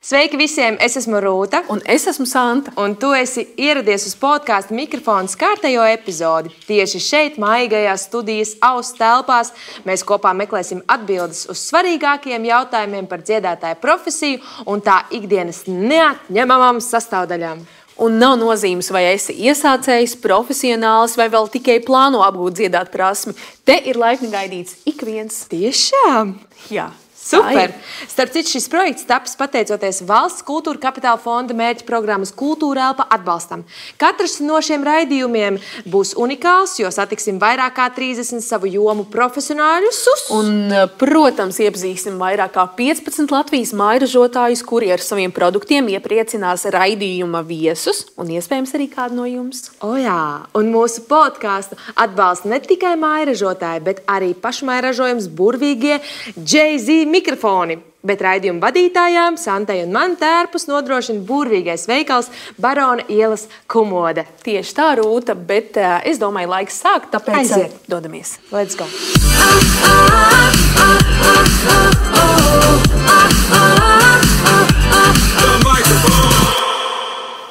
Sveiki visiem! Es esmu Rūta. Un es esmu Santa. Un tu esi ieradies uz podkāstu Mikrofons kārtējo epizodi. Tieši šeit, maigajās studijas auss telpās, mēs kopā meklēsim atbildes uz svarīgākajiem jautājumiem par dziedātāju profesiju un tā ikdienas neatņemamām sastāvdaļām. Un nav nozīmes, vai esi iesācējs, profesionāls vai vēl tikai plāno apgūt dziedāt prasmi. Te ir laipni gaidīts ik viens. Tiešām? Jā. Super! Starp citu, šis projekts tapis pateicoties Valsts kultūra kapitāla fonda mērķa programmas Kultūra elpa atbalstam. Katrs no šiem raidījumiem būs unikāls, jo satiksim vairāk kā 30 savu jomu profesionāļus. Un, protams, iepazīsim vairāk kā 15 Latvijas mājražotājus, kuri ar saviem produktiem iepriecinās raidījuma viesus un iespējams arī kādu no jums. O jā, un mūsu podkāstu atbalsta ne tikai mājražotāji, bet arī pašmājražojums burvīgie Jay-Z mikrofoni, bet raidījuma vadītājām Santai un man tērpus nodrošina burvīgais veikals Barona ielas Kumode. Tieši tā, Rūta, bet es domāju, laiks sākt, tāpēc aiziet. Dodamies. Let's go!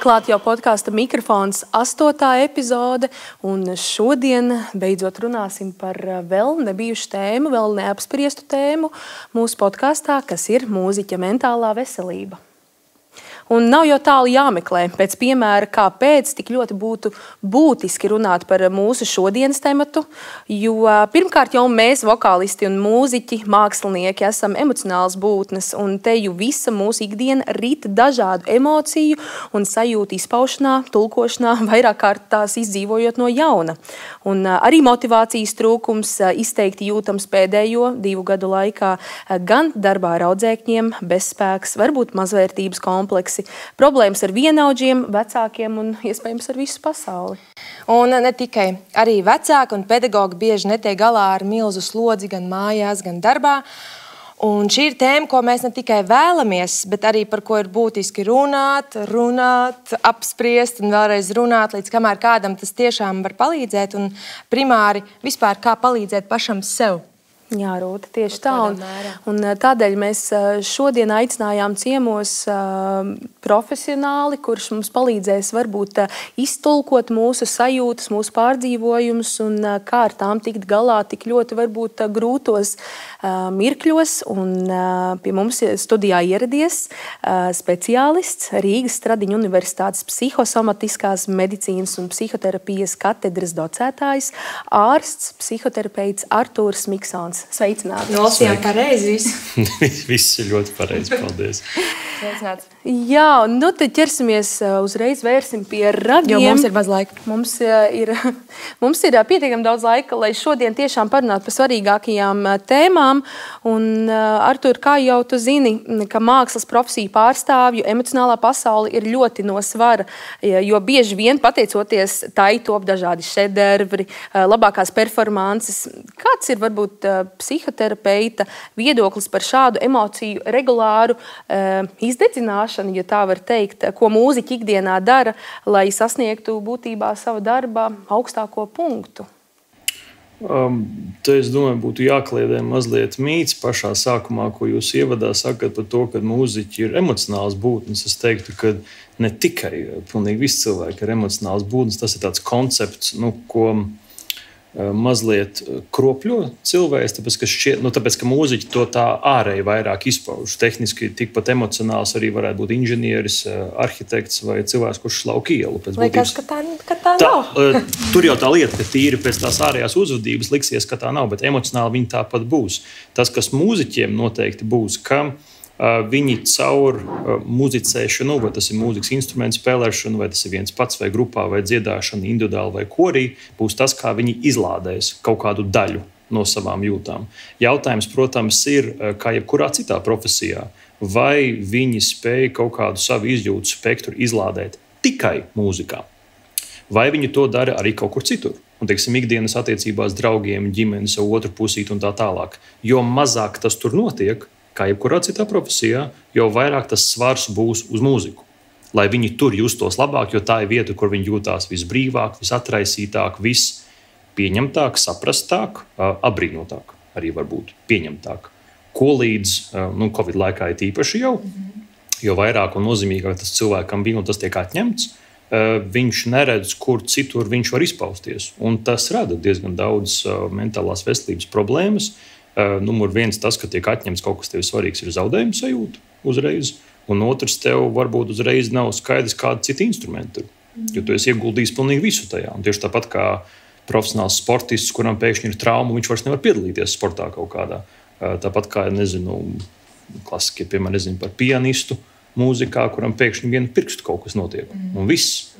Klāt jau podkāsta Mikrofons 8. epizode, un šodien beidzot runāsim par vēl nebijušu tēmu, vēl neapspriestu tēmu mūsu podkāstā, kas ir mūziķa mentālā veselība. Un nav jau tālu jāmeklē, pēc piemēra, kāpēc tik ļoti būtu būtiski runāt par mūsu šodienas tematu, jo pirmkārt jau mēs, vokālisti un mūziķi, mākslinieki, esam emocionāls būtnes, un te jau visa mūsu ikdiena rit dažādu emociju un sajūtu izpaušanā, tulkošanā, vairāk kārt tās izdzīvojot no jauna. Un arī motivācijas trūkums izteikti jūtams pēdējo 2 gadu laikā gan darbā ar audzēkņiem, bezspēks, varbūt mazvērtības kompleksi, problēmas ar vienaudžiem, vecākiem un iespējams ar visu pasauli. Un ne tikai. Arī vecāki un pedagogi bieži netiek galā ar milzu slodzi gan mājās, gan darbā. Un šī ir tēma, ko mēs ne tikai vēlamies, bet arī par ko ir būtiski runāt, apspriest un vēlreiz runāt, līdz kamēr kādam tas tiešām var palīdzēt un primāri vispār kā palīdzēt pašam sev. Jā, Rūta, tieši tā. Un tādēļ mēs šodien aicinājām ciemos profesionāli, kurš mums palīdzēs varbūt iztulkot mūsu sajūtas, mūsu pārdzīvojumus un kā ar tām tikt galā tik ļoti varbūt grūtos mirkļos. Un pie mums studijā ieradies speciālists, Rīgas Stradiņu Universitātes psihosomatiskās medicīnas un psihoterapijas katedras docētājs, ārsts, psihoterapeits Artūrs Miksons. Sveicināti! Nolasījām pareizi visu. Viss ir ļoti pareizi, paldies. Sveicināts. Jā, nu tad ķersimies uzreiz vērsim pie ragiem. Jo mums ir maz laika. Mums ir pietiekami daudz laika, lai šodien tiešām parunātu par svarīgākajām tēmām. Un, Artur, kā jau tu zini, ka mākslas profesiju pārstāvju emocionālā pasaule ir ļoti no svara, jo bieži vien pateicoties tai top dažādi šedevri, labākās performances. Kāds ir varbūt psihoterapeita viedoklis par šādu emociju regulāru izdedzināšanu, ja tā var teikt, ko mūziķi ikdienā dara, lai sasniegtu būtībā savu darba augstāko punktu? Te, es domāju, būtu jākliedē mazliet mīts pašā sākumā, ko jūs ievadā sakat par to, ka mūziķi ir emocionāls būtnes. Es teiktu, ka ne tikai pilnīgi visi cilvēki ir emocionāls būtnes. Tas ir tāds koncepts, ko mazliet kropļo cilvēks, tāpēc, ka mūziķi to tā ārēji vairāk izpauž. Tehniski tikpat emocionāls arī varētu būt inženieris, arhitekts vai cilvēks, kurš slauk ielu. Liekas, ka tā nav. Tur jau tā lieta, ka tīri pēc tās ārējās uzvedības liksies, ka tā nav, bet emocionāli viņi tāpat būs. Tas, kas mūziķiem noteikti būs, ka viņi caur muzicēšanu, vai tas ir mūzikas instrumentu spēlēšanu, vai tas ir viens pats, vai grupā, vai dziedāšana, individuāli vai korī, būs tas, kā viņi izlādēs kaut kādu daļu no savām jūtām. Jautājums, protams, ir, kā jebkurā citā profesijā, vai viņi spēj kaut kādu savu izjūtu spektru izlādēt tikai mūzikā, vai viņi to dara arī kaut kur citur. Un, teiksim, ikdienas attiecībās draugiem, ģimenes, otru pusīt un tā tālāk. Jo mazāk tas tur notiek, kā jebkurā citā profesijā, jo vairāk tas svars būs uz mūziku. Lai viņi tur justos labāk, jo tā ir vieta, kur viņi jūtās visbrīvāk, visatraisītāk, vispieņemtāk, saprastāk, apbrīnotāk, arī varbūt pieņemtāk. Ko līdz Covid laikā ir īpaši jau. jo vairāk un nozīmīgāk tas cilvēkam bija un tas tiek atņemts, viņš neredz, kur citur viņš var izpausties. Un tas rada diezgan daudz mentālās veselības problēmas. Numur viens tas, ka tiek atņemts kaut kas tev svarīgs, ir zaudējuma sajūta uzreiz. Un otrs, tev varbūt uzreiz nav skaidrs, kāda cita instrumenta ir. Jo tu esi ieguldījis pilnīgi visu tajā. Un tieši tāpat kā profesionāls sportists, kuram pēkšņi ir trauma, viņš vairs nevar piedalīties sportā kaut kādā. Tāpat kā, klasiski, piemēram, par pianistu mūzikā, kuram pēkšņi vienu pirkstu kaut kas notiek. Un viss.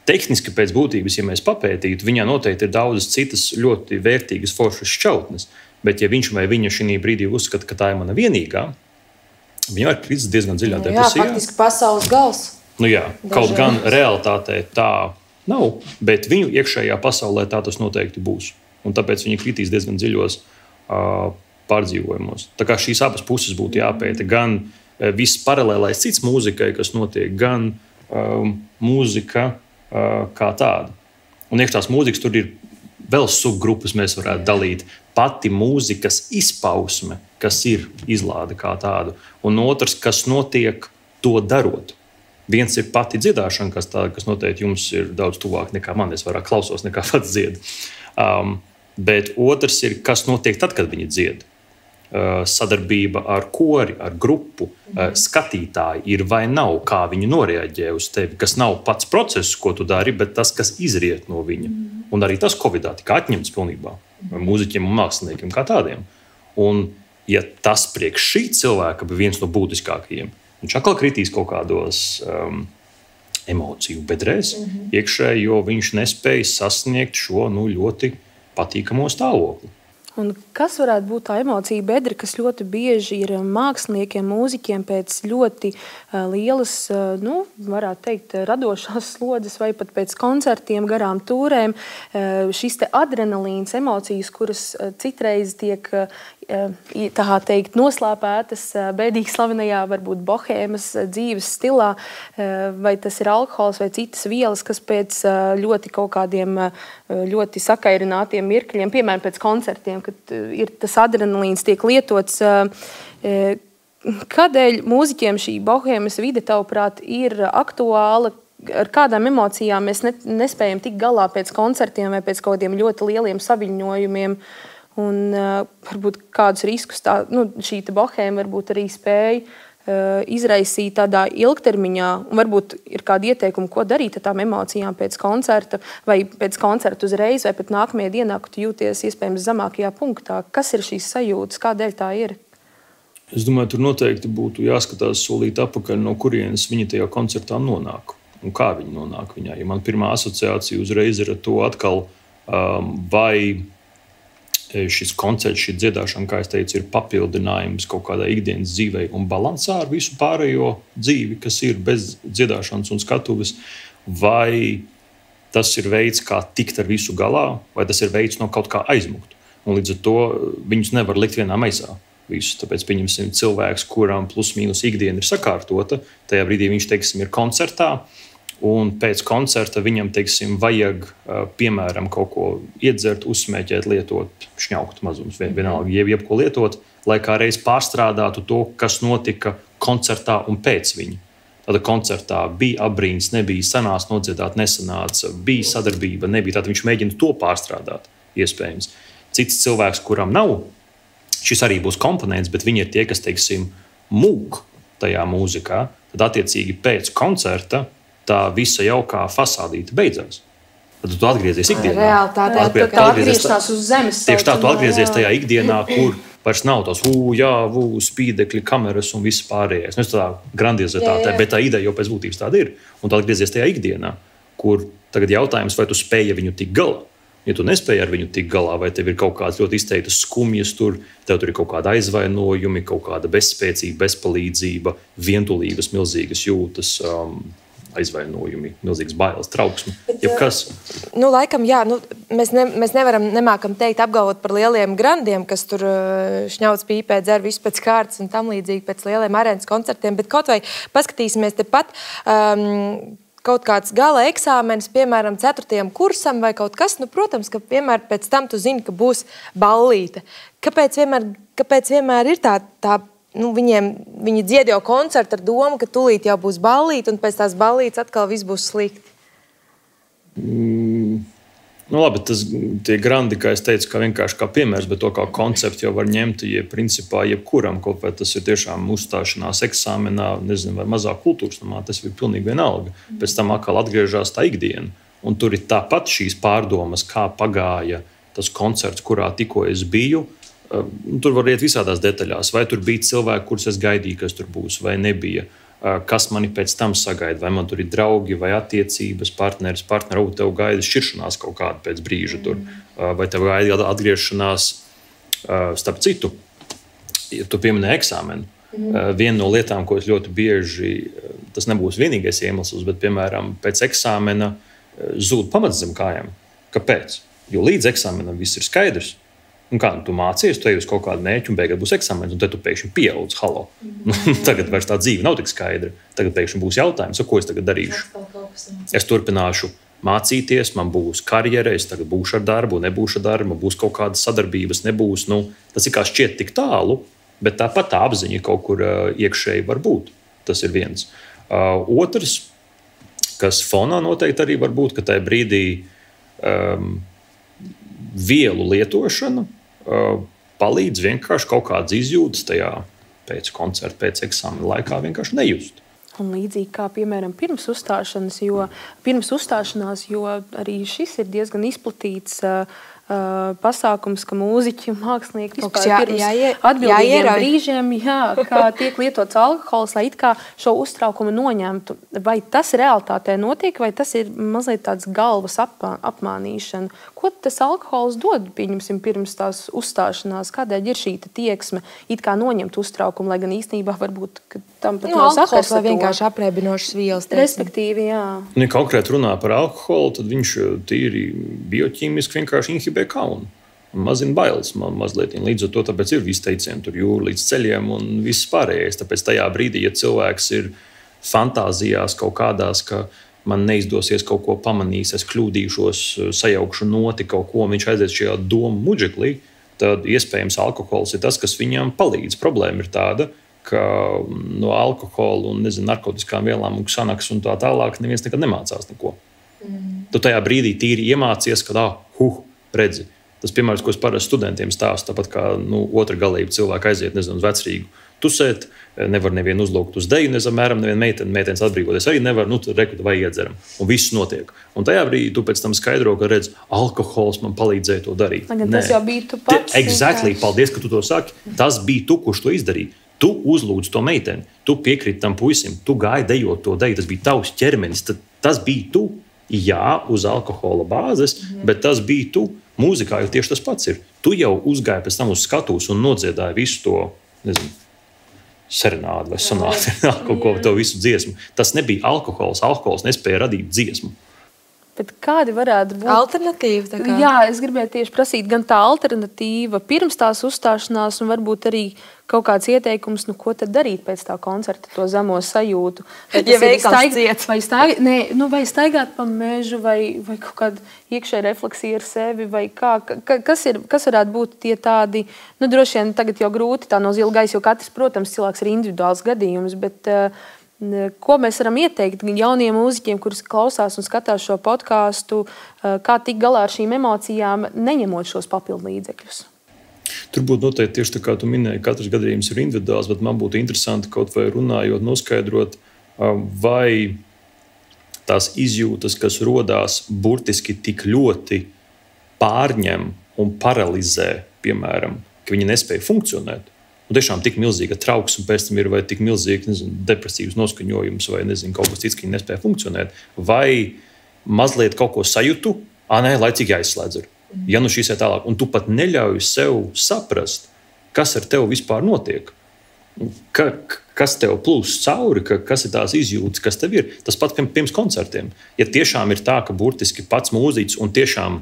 Tehniski pēc būtības, ja mēs papētītu, viņā noteikti ir daudzas citas ļoti vērtīgas foršas šķautnes. Bet ja viņš vai viņa šī brīdī uzskata, ka tā ir mana vienīgā, viņa var kritis diezgan dziļā depresijā. Jā, faktiski pasaules gals. Jā, kaut gan realitātē tā nav, bet viņu iekšējā pasaulē tā tas noteikti būs. Un tāpēc viņi kritīs diezgan dziļos pārdzīvojumos. Tā kā šīs abas puses būtu jāpēta, gan viss paralēlais cits mūzikai, kas notiek, gan mūzika kā tāda. Un iekš tās mūzikas tur ir vēl subgrupas, mēs varētu dalīt. Pati mūzikas izpausme, kas ir izlāde kā tādu, un otrs, kas notiek to darot. Viens ir pati dziedāšana, kas noteikti jums ir daudz tuvāk nekā man. Es vairāk klausos nekā pats dziedu. Bet otrs ir, kas notiek tad, kad viņi dzied. Sadarbība ar kori, ar grupu, skatītāji ir vai nav, kā viņi noreaģē uz tevi, kas nav pats process, ko tu dari, bet tas, kas izriet no viņa. Un arī tas Covidā tika atņemts pilnībā mūziķiem un māksliniekiem kā tādiem. Un ja tas priekš šī cilvēka bija viens no būtiskākajiem, viņš atkal kritīs kaut kādos emociju bedrēs iekšēji, jo viņš nespēja sasniegt šo ļoti patīkamo stāvokli. Un kas varētu būt tā emocija bedra, kas ļoti bieži ir māksliniekiem, mūziķiem pēc ļoti lielas, varētu teikt, radošās slodzes vai pat pēc koncertiem, garām tūrēm, šis te adrenalīns, emocijas, kuras citreiz tiek tā teikt noslēpētas bēdīgi slavenajā, varbūt bohēmas dzīves stilā, vai tas ir alkohols vai citas vielas, kas pēc ļoti kaut kādiem ļoti sakairinātiem mirkļiem, piemēram, pēc koncertiem, kad ir tas adrenalīns tiek lietots. Kādēļ mūziķiem šī bohēmas vide, tavuprāt, ir aktuāla? Ar kādām emocijām mēs nespējam tikt galā pēc koncertiem vai pēc kaut kādiem ļoti lieliem saviņojumiem? Un varbūt kādus riskus šī bohēma varbūt arī spēja izraisīt tādā ilgtermiņā, un varbūt ir kādi ieteikumi, ko darīt ar tām emocijām pēc koncerta, vai pēc koncerta uzreiz, vai pat nākamajā dienā, kad tu jūties iespējams zemākajā punktā. Kas ir šīs sajūtas, kādēļ tā ir? Es domāju, tur noteikti būtu jāskatās solīt apakaļ, no kurienes viņi tajā koncertā nonāk, un kā viņi nonāk viņā. Ja man pirmā asociācija uzreiz ir ar to atkal, vai šis koncerts, šī dziedāšana, kā es teicu, ir papildinājums kaut kādai ikdienas dzīvei un balansā ar visu pārējo dzīvi, kas ir bez dziedāšanas un skatuves, vai tas ir veids, kā tikt ar visu galā, vai tas ir veids no kaut kā aizmukt. Un līdz ar to viņus nevar likt vienā maisā. Visus. Tāpēc pieņemsim cilvēks, kuram plus mīnus ikdiena ir sakārtota, tajā brīdī viņš, teiksim, ir koncertā, un pēc koncerta viņam, teiksim, vajag, piemēram, kaut ko iedzert, uzsmēķēt, lietot, šņaukt mazums, vienalga, jebko lietot, lai kā reiz pārstrādātu to, kas notika koncertā un pēc viņa. Tāda koncertā bija abrīns, nebija, sanāca nodziedāt, nesanāca, bija sadarbība, nebija. Tātad viņš mēģina to pārstrādāt, iespējams. Cits cilvēks, kuram nav, šis arī būs komponents, bet viņi ir tie, kas, teiksim, mūk tajā mūzikā, tad attiecīgi pēc koncerta tā visa jaukā fasādīte beidzās. Tad tu atgriezies ikdienā. Realitātē tā atgriešanās uz zemes. Tieši tā, tu atgriezies tajā ikdienā, kur vairs nav tos spīdekļi, kameras un viss pārējais. Nu, tā grandiozitāte, bet tā ideja jau pēc būtības tāda ir. Un tu atgriezies tajā ikdienā, kur tagad jautājums, vai tu spēji viņu tikt galā. Ja tu nespēji ar viņu tikt galā, vai tev ir kaut kādas ļoti izteiktas skumjas tev tur ir kaut kāda aizvainojumi, kaut kāda bezspēcība, bezpalīdzība, vientulības, milzīgas jūtas, aizvainojumi, milzīgas bailes, trauksme. Jebkas. Laikam, jā, mēs nemākam teikt, apgalvot par lieliem grandiem, kas tur šņauc pīpē, dzer visu pēc kārtas un tam līdzīgi pēc lieliem arēnas koncertiem, bet kaut vai paskatīsimies tepat kaut kāds gala eksāmenis, piemēram, 4. kursam vai kaut kas, protams, ka vienmēr pēc tam tu zini, ka būs ballīte. Kāpēc vienmēr ir tā viņi dzied jau koncertu ar domu, ka tūlīt jau būs ballīte, un pēc tās ballītes atkal viss būs slikti. Labi, tie grandi, kā es teicu, kā vienkārši kā piemērs, bet to kā konceptu jau var ņemt, principā jebkuram, kaut vai tas ir tiešām uzstāšanās eksāmenā, nezinu, vai mazā kultūras namā, tas ir pilnīgi vienalga. Pēc tam atkal atgriežās tā ikdiena, un tur ir tāpat šīs pārdomas, kā pagāja tas koncerts, kurā tikko es biju. Tur var iet visādās detaļās. Vai tur bija cilvēki, kurus es gaidīju, kas tur būs, vai nebija. Kas mani pēc tam sagaida. Vai man tur ir draugi, vai attiecības, partneris, tev gaida šķiršanās kaut kāda pēc brīža tur. Vai tev gaida atgriešanās, starp citu, ja tu pieminēji eksāmenu. Viena no lietām, ko es ļoti bieži, tas nebūs vienīgais iemesls, bet, piemēram, pēc eksāmena zūd pamats zem kājām. Kāpēc? Jo līdz eksāmenam viss ir skaidrs. Un kā tu mācies, tu ej uz kaut kādu mērķi, un beigās būs eksāmens, un tad tu pēkšņi pieaudz. Halo. Tagad vairs tā dzīve nav tik skaidra. Tagad pēkšņi būs jautājums, ko es tagad darīšu. Es turpināšu mācīties, man būs karjera, es tagad būšu ar darbu, nebūšu ar darbu, būs kaut kādas sadarbības, nebūs. Tas ir kā šķiet tik tālu, bet tāpat tā apziņa kaut kur iekšēji var būt. Tas ir viens. Otrs, kas fonā noteikti arī var būt, ka tajā brīdī vielu lietošana palīdz vienkārši kaut kādas izjūtas tajā pēc koncerta, pēc eksāmena laikā vienkārši nejust. Un līdzīgi kā, piemēram, pirms uzstāšanās, jo arī šis ir diezgan izplatīts pasākums, ka mūziķi, mākslinieki vispār pirms atbildīgiem brīžiem, kā tiek lietots alkohols, lai it kā šo uztraukumu noņemtu. Vai tas realitātē notiek, vai tas ir mazliet tāds galvas apmānīšana? Ko tas alkohols dod, pieņemsim, pirms tās uzstāšanās? Kādēļ ir šī tieksme it kā noņemt uztraukumu, lai gan īstenībā varbūt, ka tam pat nav sakars ar to? Vienkārši aprēbinošas vielas. Respektīvi, jā. Ja konkrēti runā par alkoholu, tad viņš tīri bioķīmiski vienkārši inhibē kaunu. Mazina bailes mazliet. Līdz ar to tāpēc ir visi teicieni tur jūra līdz ceļiem un viss pārējais. Tāpēc tajā brīdī, ja cilvēks ir fantāzijās kaut kādās, ka man neizdosies kaut ko pamanīs, es kļūdīšos, sajaukšu noti kaut ko, un viņš aizies šajā domu muģeklī, tad iespējams alkohols ir tas, kas viņam palīdz. Problēma ir tāda, ka no alkohola un narkotiskām vielām un ksanaks un tā tālāk neviens nekad nemācās neko. Tu tajā brīdī tīri iemācies, ka redzi. Tas piemērs, ko es parasti studentiem stāstu, tāpat kā otra galība cilvēki aiziet, uz vecrīgu tusēt, nevar nevienu uzlūgt uz deju, apmēram nevienu meitenes atbrīvoties arī nevar, tad rekutu vai iedzeram. Un viss notiek. Un tajā brīdī tu pēc tam skaidro, ka redz, alkohols man palīdzēja to darīt. Tas jau bija tu pats. Exactly, paldies, ka tu to saki. Tas bija tu, kurš to izdarīja. Tu uzlūdzi to meiteni, tu piekriti tam puisim, tu gāji dejot to deju, tas bija tavs ķermenis, tas bija tu. Jā, uz alkohola bāzes, bet tas bija tu. Mūzikā jau tieši tas pats ir. Tu jau uzgāji pēc tam uz skatuves un nodziedāji visu to, serenādi vai sonāti, kaut ko to visu dziesmu. Tas nebija alkohols. Alkohols nespēja radīt dziesmu. Bet kādi varētu būt alternatīva? Jā, es gribēju tieši prasīt gan tā alternatīva pirms tās uzstāšanās, un varbūt arī kaut kāds ieteikums, ko tad darīt pēc tā koncerta, to zemo sajūtu. Ja veikals ciet. Vai staigāt pa mežu, vai kaut kāda iekšēja refleksija ar sevi, vai kas varētu būt tie tādi, droši vien tagad jau grūti tā no zila gaisa, jo katrs, protams, cilvēks ir individuāls gadījums, bet ko mēs varam ieteikt jauniem mūziķiem, kurus klausās un skatās šo podkāstu, kā tikt galā ar šīm emocijām, neņemot šos papildu līdzekļus? Tur būtu noteikti tieši tā, kā tu minēji, katrs gadījums ir individuāls, bet man būtu interesanti kaut vai runājot, noskaidrot, vai tās izjūtas, kas rodās burtiski tik ļoti pārņem un paralizē, piemēram, ka viņi nespēja funkcionēt. Un tiešām tik milzīga trauksme pēc tam ir, vai tik milzīga depresīvs noskaņojums, vai kaut kas cits, ka viņi nespēja funkcionēt. Vai mazliet kaut ko sajūtu, laicīgi jāizslēdz. Ja šīs ir tālāk, un tu pat neļauj sev saprast, kas ar tevi vispār notiek, kas tev plūst cauri, kas ir tās izjūtas, kas tev ir. Tas pats pirms koncertiem. Ja tiešām ir tā, ka burtiski pats mūziķis, un tiešām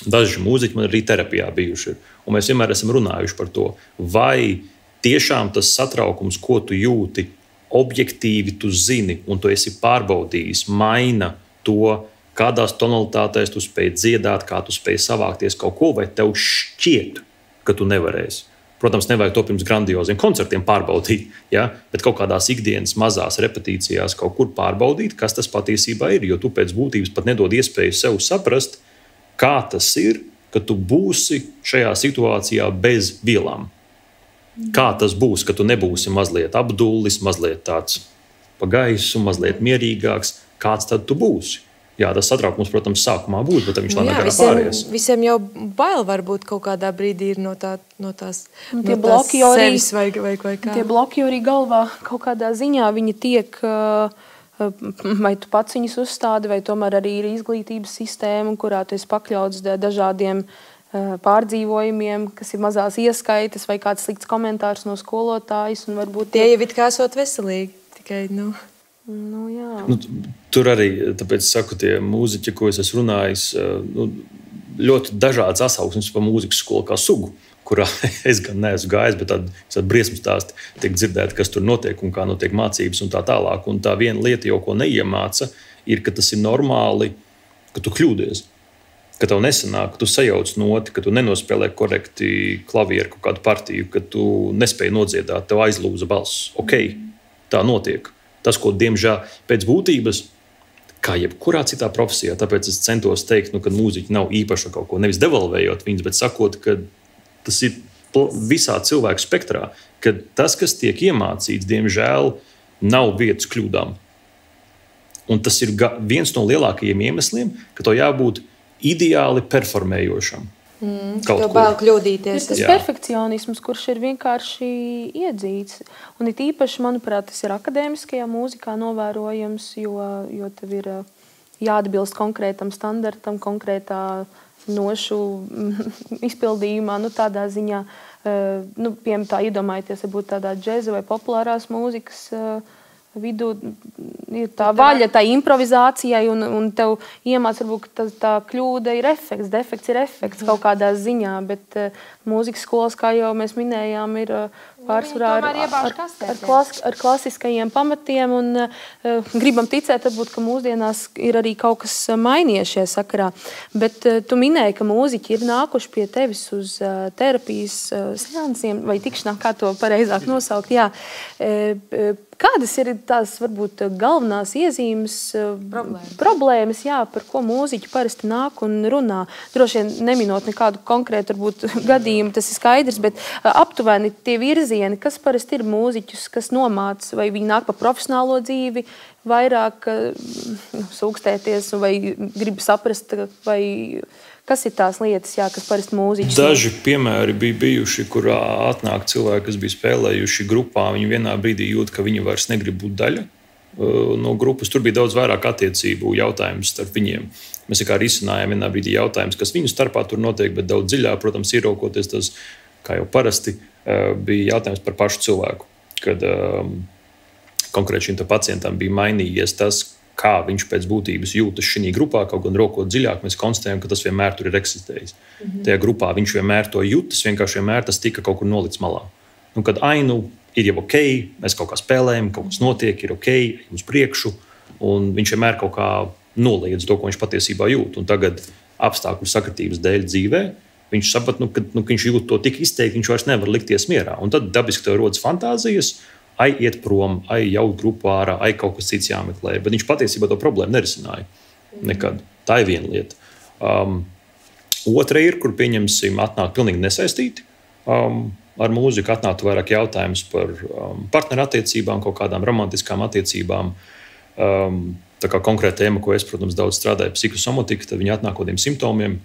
daži mūziķi man arī terapijā bijuši ir, un mēs vienmēr esam runājuši par to, vai tiešām tas satraukums, ko tu jūti, objektīvi tu zini, un tu esi pārbaudījis, maina to, kādās tonalitātēs tu spēj dziedāt, kā tu spēj savākties kaut ko, vai tev šķiet, ka tu nevarēsi. Protams, nevajag to pirms grandioziem koncertiem pārbaudīt, ja? Bet kaut kādās ikdienas mazās repetīcijās kaut kur pārbaudīt, kas tas patiesībā ir. Jo tu pēc būtības pat nedod iespēju sev saprast, kā tas ir, ka tu būsi šajā situācijā bez vielām. Kā tas būs, ka tu nebūsi mazliet apdullis, mazliet tāds pa gaisu, mazliet mierīgāks. Kāds tad tu būsi? Jā, tas satraukums, protams, sākumā būs, bet viņš lēnāk garā pāries. Visiem jau bail varbūt kaut kādā brīdī ir no tās sevis vai kā. Tie bloki arī galvā kaut kādā ziņā viņi tiek, vai tu pats viņus uzstādi, vai tomēr arī ir izglītības sistēma, kurā tu esi pakļauts dažādiem pārdzīvojumiem, kas ir mazās ieskaitas vai kāds slikts komentārs no skolotājas. Un varbūt tie jau it kā esot veselīgi, tikai, jā. Tur arī, tāpēc saku, tie mūziķi, ko es esmu runājis, ļoti dažādas atsauksmes par mūzikas skolu kā sugu, kurā es gan neesmu gājis, bet tādi briesmu stāsti tiek dzirdēti, kas tur notiek un kā notiek mācības un tā tālāk. Un tā viena lieta, ko neiemāca, ir, ka tas ir normāli, ka tu kļūdies, ka tev nesanāk, ka tu sajauc noti, ka tu nenospēlē korekti klavieru kaut kādu partiju, ka tu nespēji nodziedāt, tev aizlūza balss. Ok, tā notiek. Tas, ko, diemžēl, pēc būtības, kā jebkurā citā profesijā, tāpēc es centos teikt, ka mūziķi nav īpaša kaut ko, nevis devalvējot viņus, bet sakot, ka tas ir visā cilvēku spektrā, ka tas, kas tiek iemācīts, diemžēl, nav vietas kļūdām. Un tas ir viens no lielākajiem iemesliem, ka to jābūt ideāli performējošam. Tev bail kļūdīties. Ir tas perfekcionisms, kurš ir vienkārši iedzīts. Un it īpaši, manuprāt, tas ir akadēmiskajā mūzikā novērojams, jo tev ir jāatbilst konkrētam standartam, konkrētā nošu izpildījumā, tādā ziņā, piemēram, tā iedomājieties, varbūt tādā džeza vai populārās mūzikas vidū ir tā vaļa, tā improvizācijai, un tev iemāc, varbūt, ka tā kļūda ir efekts, defekts ir efekts kaut kādā ziņā, bet mūzikas skolas, kā jau mēs minējām, ir pārsvarā ar klasiskajiem pamatiem, un gribam ticēt, varbūt, ka mūsdienās ir arī kaut kas mainījies šajā sakarā. Bet tu minēji, ka mūziķi ir nākuši pie tevis uz terapijas seansiem, vai tikšanā, kā to pareizāk nosaukt, jā. Kādas ir tās, varbūt, galvenās iezīmes, problēmas, jā, par ko mūziķi parasti nāk un runā? Droši vien neminot nekādu konkrētu, varbūt, gadījumu, tas ir skaidrs, bet aptuveni tie virzieni, kas parasti ir mūziķus, kas nomāc, vai viņi nāk pa profesionālo dzīvi, vairāk sūkstēties, vai grib saprast, vai kas ir tās lietas, jā, kas parasti mūziķis? Daži piemēri bija bijuši, kurā atnāk cilvēki, kas bija spēlējuši grupā, viņi vienā brīdī jūt, ka viņi vairs negrib būt daļa no grupas. Tur bija daudz vairāk attiecību jautājums starp viņiem. Mēs kā risinājām vienā brīdī jautājums, kas viņu starpā tur notiek, bet daudz dziļāk, protams, ieraukoties tas, kā jau parasti, bija jautājums par pašu cilvēku. Kad konkrēti šim pacientam bija mainījies tas, kā viņš pēc būtības jūtas šī grupā, kaut gan rokot dziļāk, mēs konstatējam, ka tas vienmēr tur ir eksistējis. Tajā grupā viņš vienmēr to jūtas, vienkārši vienmēr tas tika kaut kur nolikts malā. Kad ir jau ok, mēs kaut kā spēlējam, kaut kas notiek, ir ok, ejam uz priekšu, un viņš vienmēr kaut kā noliedz to, ko viņš patiesībā jūt. Un tagad apstākļu sakritības dēļ dzīvē viņš saprot, ka viņš jūt to tik izteikti, viņš vairs nevar likties mierā. Un tad dabiski tev rodas fantāzijas, iet prom, jaut grupu ārā, kaut kas cits jāmeklē. Bet viņš patiesībā to problēmu nerisināja nekad. Tā ir viena lieta. Otra ir, kur pieņemsim, atnāk pilnīgi nesaistīti ar mūziku, atnāktu vairāk jautājums par partnerattiecībām, kaut kādām romantiskām attiecībām. Tā kā konkrēta tēma, ko es, protams, daudz strādāju, psihosomatika, tad viņi atnāk kādiem simptomiem.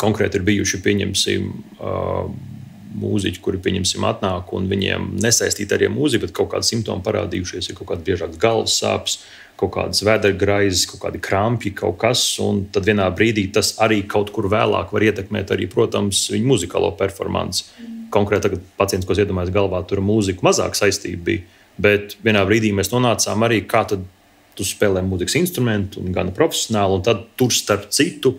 Konkrēti ir bijuši, pieņemsim, mūziķi, kuri, pieņemsim, atnāk un viņiem nesaistīti arī mūzika, bet kaut kādi simptomi parādījušies, ir kaut kāds biežāks galvas sāpes, kaut kādas vēdergraizes, kaut kādi krampji, kaut kas, un tad vienā brīdī tas arī kaut kur vēlāk var ietekmēt arī, protams, viņu muzikālo performanci. Konkrēti tagad pacients, ko es iedomājos galvā, tur mūzika mazāk saistība bija, bet vienā brīdī mēs nonācām arī, kā tad tu spēlē mūzikas instrumentu un gan profesionāli, un tad tur starp citu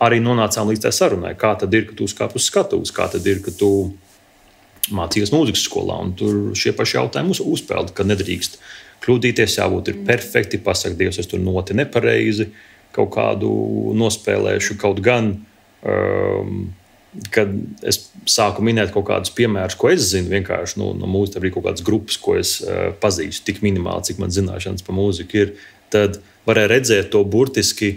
arī nonācām līdz tā sarunai. Kā tad ir, ka tu uzkāp uz skatuves, kā tad ir, ka tu mācījies mūzikas skolā, un tur šie paši jautājumi uzpeld, ka nedrīkst kļūdīties, jābūt ir perfekti, pasaka, Dievs, es tur noti nepareizi, kaut kādu nospēlēšu, kaut gan kad es sāku minēt kaut kādus piemērus, ko es zinu, vienkārši no mūzikas, arī kaut kādas grupas, ko es pazīstu, tik minimāli, cik man zināšanas par mūziku ir, tad varēja redzēt to burtiski.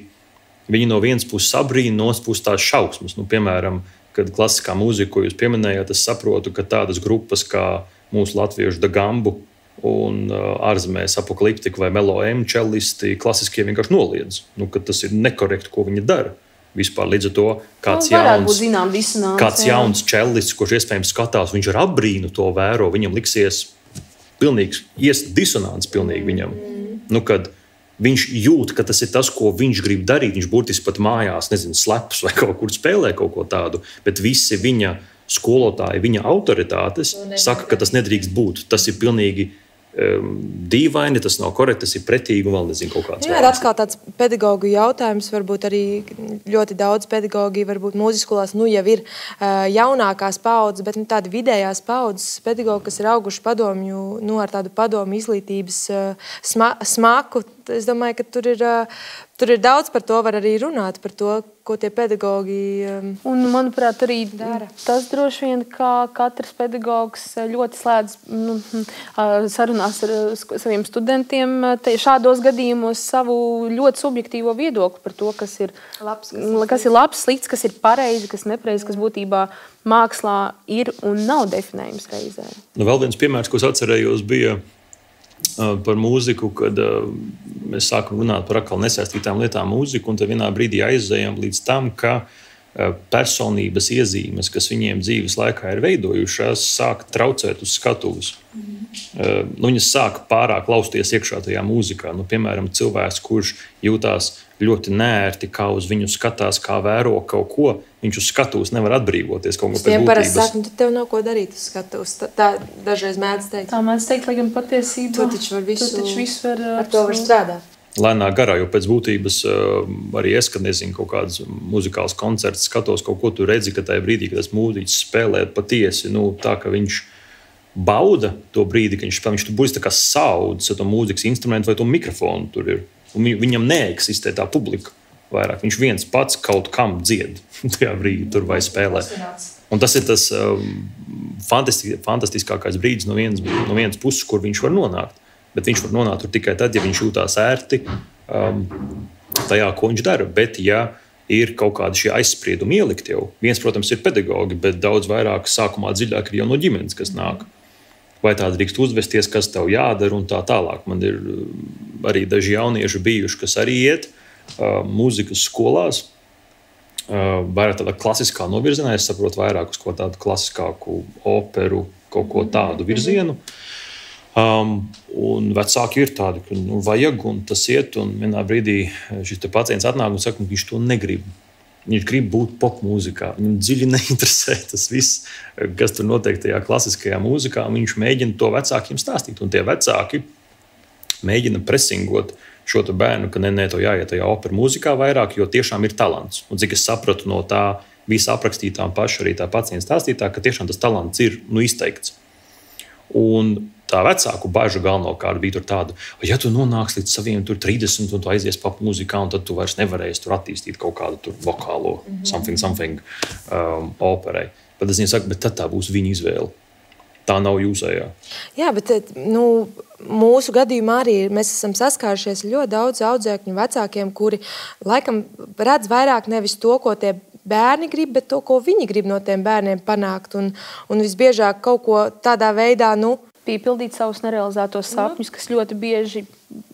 Viņi no vienas puses sabrīna, no otras puses tās šausmas. Piemēram, kad klasiskā mūzika, ko jūs pieminējāt, es saprotu, ka tādas grupas kā mūsu latviešu Dagambu un ārzemēs Apokaliptika vai Melo M čellisti klasiskie vienkārši noliedz, ka tas ir nekorekti, ko viņi dara. Vispār līdz ar to kāds jauns čellists, kurš iespējams skatās, viņš ar apbrīnu to vēro, viņam liksies pilnīgs disonants pilnīgi viņam. Kad viņš jūt, ka tas ir tas, ko viņš grib darīt, viņš burtiski pat mājās, slepus vai kaut kur spēlē kaut ko tādu, bet visi viņa skolotāji, viņa autoritātes saka, ka tas nedrīkst būt. Tas ir pilnīgi dīvaini, tas nav korekti, tas ir pretīgi un vēl nezinu kaut kāds. Jā, ir atkal tāds pedagogu jautājums, varbūt arī ļoti daudz pedagogi, varbūt mūzikas skolās, jau ir jaunākās paudzes, bet tādi vidējās paudzes pedagogi, kas ir auguši padomju, ar tādu padomju izglītības smaku. Es domāju, ka tur ir daudz par to, var arī runāt par to, ko tie pedagogi un, manuprāt, arī dara. Tas droši vien, kā katrs pedagogs ļoti slēdz sarunās ar saviem studentiem šādos gadījumos savu ļoti subjektīvo viedokli par to, kas ir labs, slikts, kas ir pareizi, kas nepareizi, kas būtībā mākslā ir un nav definējums reizē. Vēl viens piemērs, ko es atcerējos, bija par mūziku, kad mēs sākam runāt par atkal nesaistītām lietām mūziku, un tad vienā brīdī aizējām līdz tam, ka personības iezīmes, kas viņiem dzīves laikā ir veidojušās, sāk traucēt uz skatuves. Viņas sāk pārāk lausties iekšā tajā mūzikā. Piemēram, cilvēks, kurš jūtās ļoti nērti, kā uz viņu skatās, kā vēro kaut ko, viņš uz skatuves nevar atbrīvoties kaut ko pēc būtības. Parasti saka, tev nav ko darīt uz skatuves. Tā dažreiz mēdz teikt. Tā mēdz teikt, lai gan patiesībā. Tu taču ar to var strādāt. Lēnā garā, jo pēc būtības arī es, kad nezinu kaut kādas muzikāls koncerts, skatos kaut ko, tu redzi, ka tajā brīdī, kad tas mūziķis spēlē patiesi, tā, ka viņš bauda to brīdi, ka viņš tur būs tā kā saudzes ar to mūzikas instrumentu vai to mikrofonu tur ir. Un viņam neeksistē tā publika vairāk. Viņš viens pats kaut kam dzied tajā brīdī tur vai spēlē. Un tas ir tas fantastiskākais brīdis no vienas puses, kur viņš var nonākt. Bet viņš var nonākt tur tikai tad, ja viņš jūtās ērti tajā, ko viņš dara. Bet, ja ir kaut kādi šie aizspriedumi ielikt jau, viens, protams, ir pedagogi, bet daudz vairāk sākumā dziļāk ir jau no ģimenes, kas nāk. Vai tā drīkst uzvesties, kas tev jādara un tā tālāk. Man ir arī daži jaunieši bijuši, kas arī iet mūzikas skolās. Vairāk tādā klasiskā novirzienā, es saprotu vairāk uz ko tādu klasiskāku operu, kaut ko tādu virzienu. Un vecāki ir tādi, ka vajag, un tas iet, un vienā brīdī šis pacients atnāk un saka, ka viņš to negrib. Viņš grib būt popmūzikā. Viņam dziļi neinteresē tas viss, kas tur notiek tajā klasiskajā mūzikā. Viņš mēģina to vecākiem stāstīt, un tie vecāki mēģina presingot šo bērnu, ka ne, to jāiet tajā operu mūzikā vairāk, jo tiešām ir talants. Un cik es sapratu no tā visa aprakstītā un paša arī tā pacienta stāstītā, ka tiešām tas talants ir izteikts. Un tā vecāku bažu galvenokārt bija tāda, ja tu nonāksi līdz saviem 30 un tu aizies popmūzikā, un tad tu vairs nevarēsi tur attīstīt kaut kādu vokālo something operai. Tad es viņai saku, bet tad tā būs viņa izvēle. Tā nav jūsējā. Jā, bet mūsu gadījumā arī mēs esam saskārušies ļoti daudz audzēkņu vecākiem, kuri laikam redz vairāk nevis to, ko tie bērni grib, bet to, ko viņi grib no tiem bērniem panākt. Un visbiežāk kaut ko tādā veidā, piepildīt savus nerealizētos sapņus, kas ļoti bieži,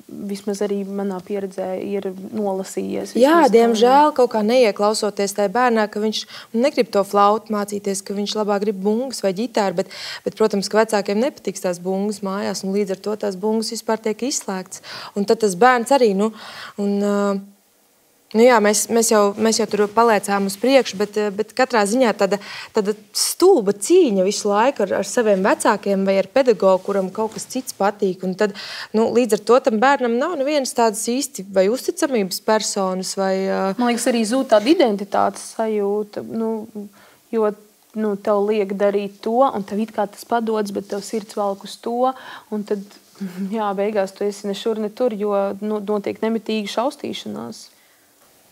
vismaz arī manā pieredzē, ir nolasījies. Jā, diemžēl kaut kā neieklausoties tajā bērnā, ka viņš negrib to flautu mācīties, ka viņš labāk grib bungas vai ģitāru, bet, protams, ka vecākiem nepatiks tās bungas mājās, un līdz ar to tās bungas vispār tiek izslēgts. Un tad tas bērns arī, jā, mēs jau tur paliecām uz priekšu, bet katrā ziņā tāda stulba cīņa visu laiku ar saviem vecākiem vai ar pedagogu, kuram kaut kas cits patīk. Un tad, līdz ar to tam bērnam nav nevienas tādas īsti vai uzticamības personas. Man liekas, arī zūd tāda identitātes sajūta, jo tev liek darīt to, un tev it kā tas padodas, bet tev sirds velk uz to, un tad, beigās tu esi ne šur, ne tur, jo notiek nemitīgi šaustīšanās.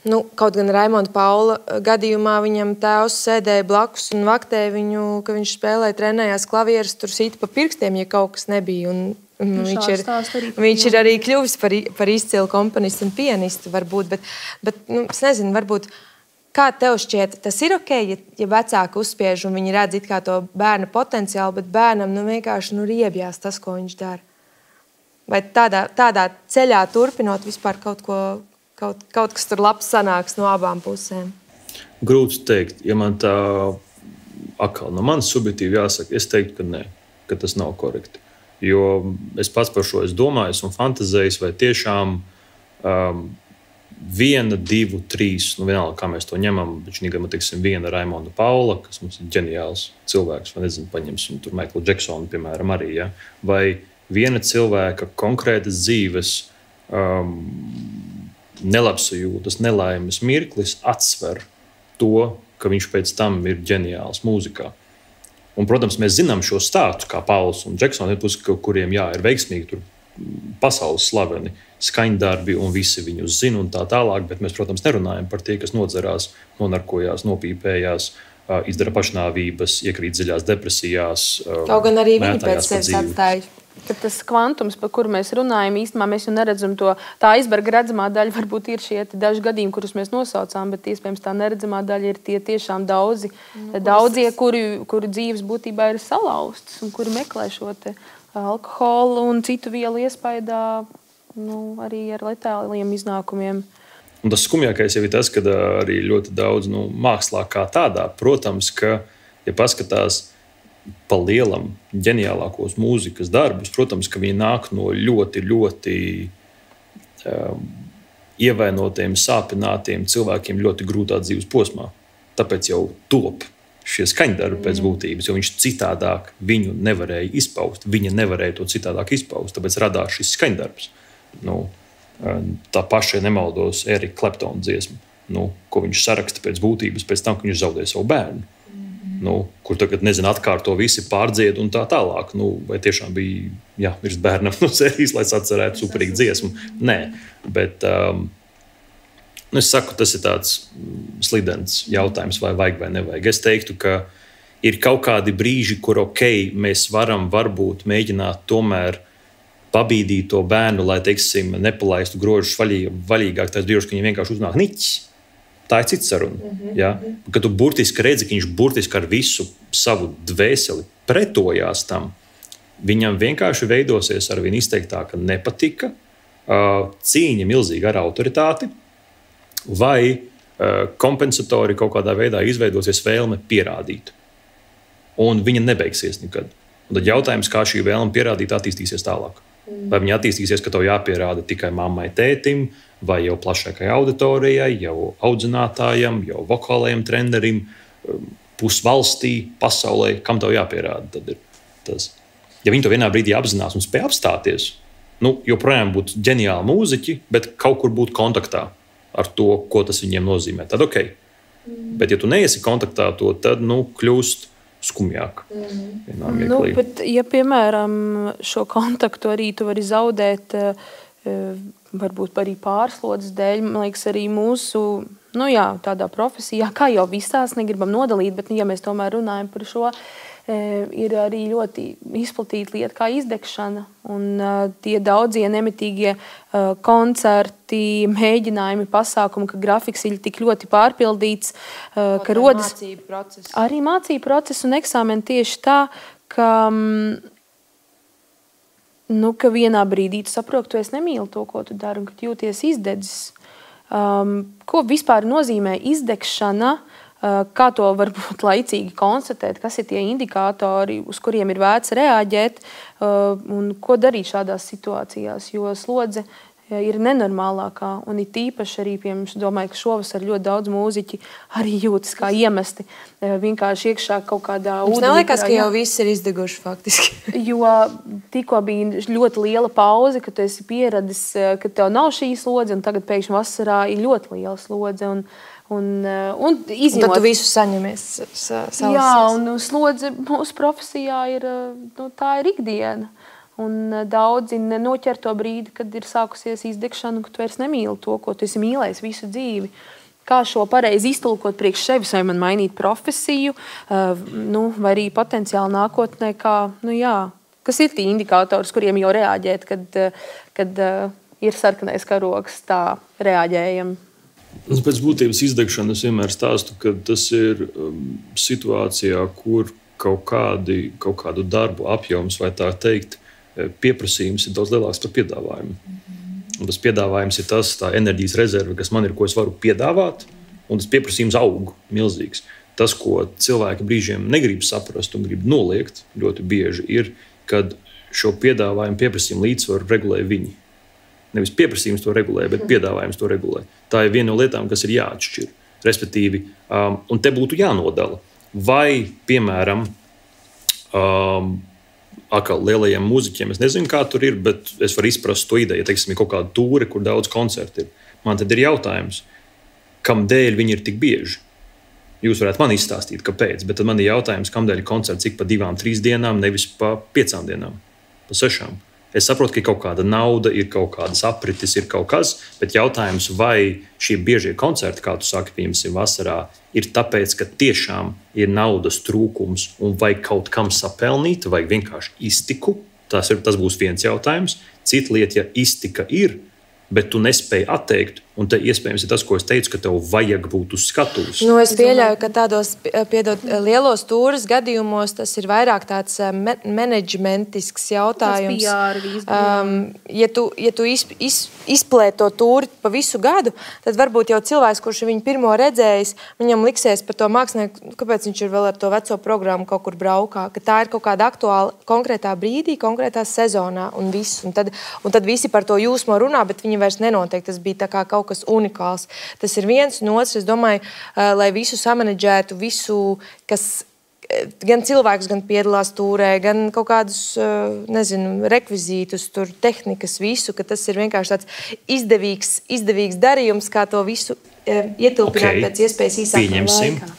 Nu, kaut gan Raimonda Paula gadījumā viņam tēvs sēdēja blakus un vaktēja viņu, ka viņš spēlēja, trenējās klavierus, tur sīta pa pirkstiem, ja kaut kas nebija. Un viņš ir arī kļuvis par izcilu komponistu un pianistu, varbūt. Bet es nezinu, varbūt, kā tev šķiet, tas ir ok, ja vecāki uzspiež un viņi redz it kā to bērna potenciālu, bet bērnam vienkārši riebjās tas, ko viņš dara. Vai tādā ceļā turpinot vispār kaut kas tur labs sanāks no abām pusēm? Grūti teikt. Ja man tā atkal no manas subjektīvi jāsaka, es teiktu, ka nē, ka tas nav korekti. Jo es pats par šo domāju un fantazēju, vai tiešām 1, 2, 3, vienalga, kā mēs to ņemam, bet šī gada, teiksim, viena Raimonda Paula, kas mums ir ģeniāls cilvēks, vai nezinu, paņemsim tur Michaelu Jacksonu, piemēram, arī, ja? Vai viena cilvēka konkrētas dzīves nelabsajūtas, nelaimes mirklis atsver to, ka viņš pēc tam ir ģeniāls mūzikā. Un, protams, mēs zinām šo stāstu, kā Pauls un Džeksons, kuriem ir veiksmīgi tur pasaules slaveni skaņdarbi un visi viņus zina un tā tālāk, bet mēs, protams, nerunājam par tie, kas nodzerās, nonarkojās, nopīpējās, izdara pašnāvības, iekrīt dziļās depresijās. Kaut gan arī viņi pēc sevis atstāja. Bet tas kvantums, par kuru mēs runājam, īstenībā mēs jau neredzam to. Tā aizberga redzamā daļa varbūt ir šie daži gadījumi, kurus mēs nosaucām, bet iespējams tā neredzamā daļa ir tie tiešām daudzie, kuri dzīves būtībā ir salauztas un kuri meklē šo te alkoholu un citu vielu iespaidā, arī ar letāliem iznākumiem. Un tas skumjākais jau ir tas, ka arī ļoti daudz mākslā kā tādā, protams, ka, ja paskatās pa lielam ģeniālākos mūzikas darbus, protams, ka viņi nāk no ļoti, ļoti ievainotiem, sāpinātiem cilvēkiem ļoti grūtā dzīves posmā. Tāpēc jau top šie skaņdarbi pēc būtības, jo viņš citādāk viņu nevarēja izpaust. Viņa nevarēja to citādāk izpaust, tāpēc radās šis skaņdarbs. Tā paša, ja nemaldos, Erika Kleptona dziesma, ko viņš saraksta pēc būtības pēc tam, ka viņš zaudēja savu bērnu. Kur tagad, atkārto visi pārdzied un tā tālāk. Vai tiešām bija jāmirst bērnam no sērijas, lai atcerētu superīgu dziesmu? Nē, bet es saku, tas ir tāds slidens jautājums, vai vajag vai nevajag. Es teiktu, ka ir kaut kādi brīži, kur mēs varam varbūt mēģināt tomēr pabīdīt to bērnu, lai, teiksim, nepalaistu grožus vaļīgāk, tās brīžos, ka viņi vienkārši uznāk niķis. Tā ir cita saruna. Ja? Kad tu burtiski redzi, ka viņš burtiski ar visu savu dvēseli pretojās tam, viņam vienkārši veidosies ar vien izteiktāka nepatika, cīņa milzīga ar autoritāti, vai kompensatori kaut kādā veidā izveidosies vēlme pierādīt. Un viņa nebeigsies nekad. Un tad jautājums, kā šī vēlme pierādīt attīstīsies tālāk. Vai viņa attīstīsies, ka tev jāpierāda tikai mammai, tētim, vai jau plašākai auditorijai, jau audzinātājam, jau vokālajam trenerim, pusvalstī, pasaulē, kam tev jāpierāda. Tad ir tas. Ja viņi to vienā brīdī apzinās un spēj apstāties, joprojām būtu ģeniāli mūziķi, bet kaut kur būt kontaktā ar to, ko tas viņiem nozīmē. Tad ok. Bet ja tu neesi kontaktā to, tad kļūst skumjāk. Bet, ja, piemēram, šo kontaktu arī tu vari zaudēt, varbūt arī pārslodzes dēļ, man liekas, arī mūsu, tādā profesijā, kā jau visās negribam nodalīt, bet, ja mēs tomēr runājam par šo, ir arī ļoti izplatīta lieta kā izdegšana. Un tie daudzie nemitīgie koncerti, mēģinājumi, pasākumi, ka grafiks ir tik ļoti pārpildīts, ka rodas arī mācību procesu un eksāmeni tieši tā, ka ka vienā brīdī tu saproti, ka tu nemīli to, ko tu dari, un ka tu jūties izdedzis. Ko vispār nozīmē izdegšana? Kā to varbūt laicīgi konstatēt, kas ir tie indikātori, uz kuriem ir vērts reaģēt un ko darīt šādās situācijās, jo slodze ir nenormālākā un ir tīpaši arī, domāju, ka šovasar ļoti daudz mūziķi arī jūtas kā iemesti vienkārši iekšā kaut kādā ūdenī. Mums neliekas, ka jau viss ir izdeguši faktiski. Jo tikko bija ļoti liela pauze, ka tu esi pieradis, ka tev nav šī slodze un tagad pēkšņi vasarā ir ļoti liela slodze un izņemot. Tad tu visu saņemies savas. Jā, un slodze mūsu profesijā ir, tā ir ikdiena. Un daudzi nenoķer to brīdi, kad ir sākusies izdegšana, ka tu vairs nemīli to, ko tu esi mīlējis visu dzīvi. Kā šo pareizi iztulkot priekš sevis, vai man mainīt profesiju, vai arī potenciāli nākotnē, kas ir tie indikātori, kuriem jau reaģēt, kad ir sarkanais karogs, tā reaģējam. Pēc būtības izdegšanas vienmēr stāstu, ka tas ir situācijā, kur kaut kādu darbu apjoms, vai tā teikt, pieprasījums ir daudz lielāks par piedāvājumu. Un tas piedāvājums ir tā enerģijas rezerve, kas man ir, ko es varu piedāvāt, un tas pieprasījums aug milzīgs. Tas, ko cilvēki brīžiem negrib saprast un grib noliegt ļoti bieži, ir, kad šo piedāvājumu pieprasījumu līdzsvaru regulē viņi. Nevis pieprasījums to regulē, bet piedāvājums to regulē. Tā ir viena no lietām, kas ir jāatšķir. Respektīvi, un te būtu jānodala. Vai, piemēram, atkal lielajiem mūziķiem, es nezinu, kā tur ir, bet es varu izprast to ideju. Ja, teiksim, ir kaut kāda tūre, kur daudz koncertu ir. Man tad ir jautājums, kamdēļ viņi ir tik bieži? Jūs varētu man izstāstīt, kāpēc, bet tad man ir jautājums, kamdēļ ir koncerts ik pa 2-3 dienām, nevis pa 5 dienām, pa 6. Es saprotu, ka ir kaut kāda nauda, ir kaut kādas aprites, ir kaut kas, bet jautājums, vai šie biežie koncerti, kā tu saki, piemēram, vasarā, ir tāpēc, ka tiešām ir naudas trūkums un vai kaut kam sapelnīt, vai vienkārši iztiku. Tas būs viens jautājums. Cita lieta, ja iztika ir, bet tu nespēji atteikt, un te iespējams ir tas, ko es teicu, ka tev vajag būt uz skatuves. Es pieļauju, ka tādos lielos tūres gadījumos tas ir vairāk tāds menedžmentisks jautājums. Ja tu izplēt to tūri pa visu gadu, tad varbūt jau cilvēks, kurš viņu pirmo redzējis, viņam liksies par to mākslinieku, kāpēc viņš ir vēl ar to veco programmu kaut kur braukā, ka tā ir kaut kāda aktuāla konkrētā brīdī, konkrētā sezonā un viss. Un tad visi par to jūsmo runā, bet viņi vairs nenotiek. Tas bija tā kā kaut kas unikāls. Tas ir viens, un otrs, es domāju, lai visu samanedžētu, visu, kas gan cilvēks, gan piedalās tūrē, gan kaut kādus, rekvizītus, tur, tehnikas, visu, ka tas ir vienkārši tāds izdevīgs darījums, kā to visu ietilpināt pēc iespējas īsākā laikā.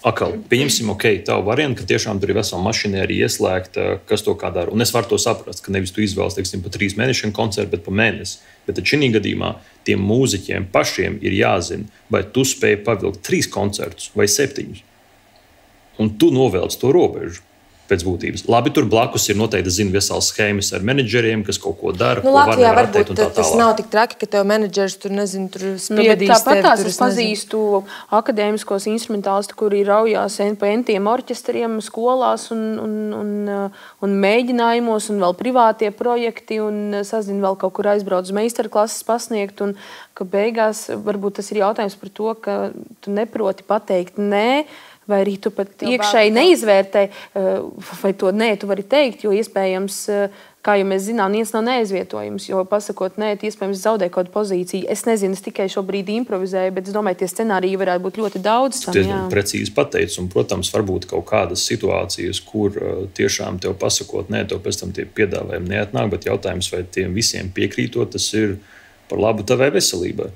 Pieņemsim, tavu variantu, ka tiešām tur ir vesela mašinērija ieslēgta, kas to kā dara. Un es varu to saprast, ka nevis tu izvēlies, teiksim, pa 3 mēnešiem koncertu, bet pa mēnesi. Bet tad šī gadījumā tiem mūziķiem pašiem ir jāzina, vai tu spēj pavilkt 3 koncertus vai 7. Un tu novelc to robežu pēc būtības. Labi, tur blakus ir noteikti, zinu, vesels schēmas ar menedžeriem, kas kaut ko dara, ko Latvijā var atteikt un tā tas nav tik traki, ka tev menedžers tur, tur spiedīs tevi. Tāpat es pazīstu akadēmiskos instrumentālistus, kuri raujās pa entiem orķestriem, skolās un mēģinājumos, un vēl privātie projekti, un sazinu vēl kaut kur aizbrauc uz meistarklases pasniegt, un ka beigās varbūt tas ir jautājums par to, ka tu neproti pateikt nē, vai arī tu pat iekšēji neizvērtē, vai to nē, tu vari teikt, jo iespējams, kā jau mēs zinām, viens nav neaizvietojums, jo pasakot nē, tu iespējams zaudē kaut kādu pozīciju. Es nezinu, es tikai šobrīd improvizēju, bet es domāju, tie scenāriji varētu būt ļoti daudz. Precīzi pateicis, un, protams, varbūt kaut kādas situācijas, kur tiešām tev pasakot nē, tev pēc tam tie piedāvājumi neatnāk, bet jautājums, vai tiem visiem piekrītot, tas ir par labu tavai veselībai.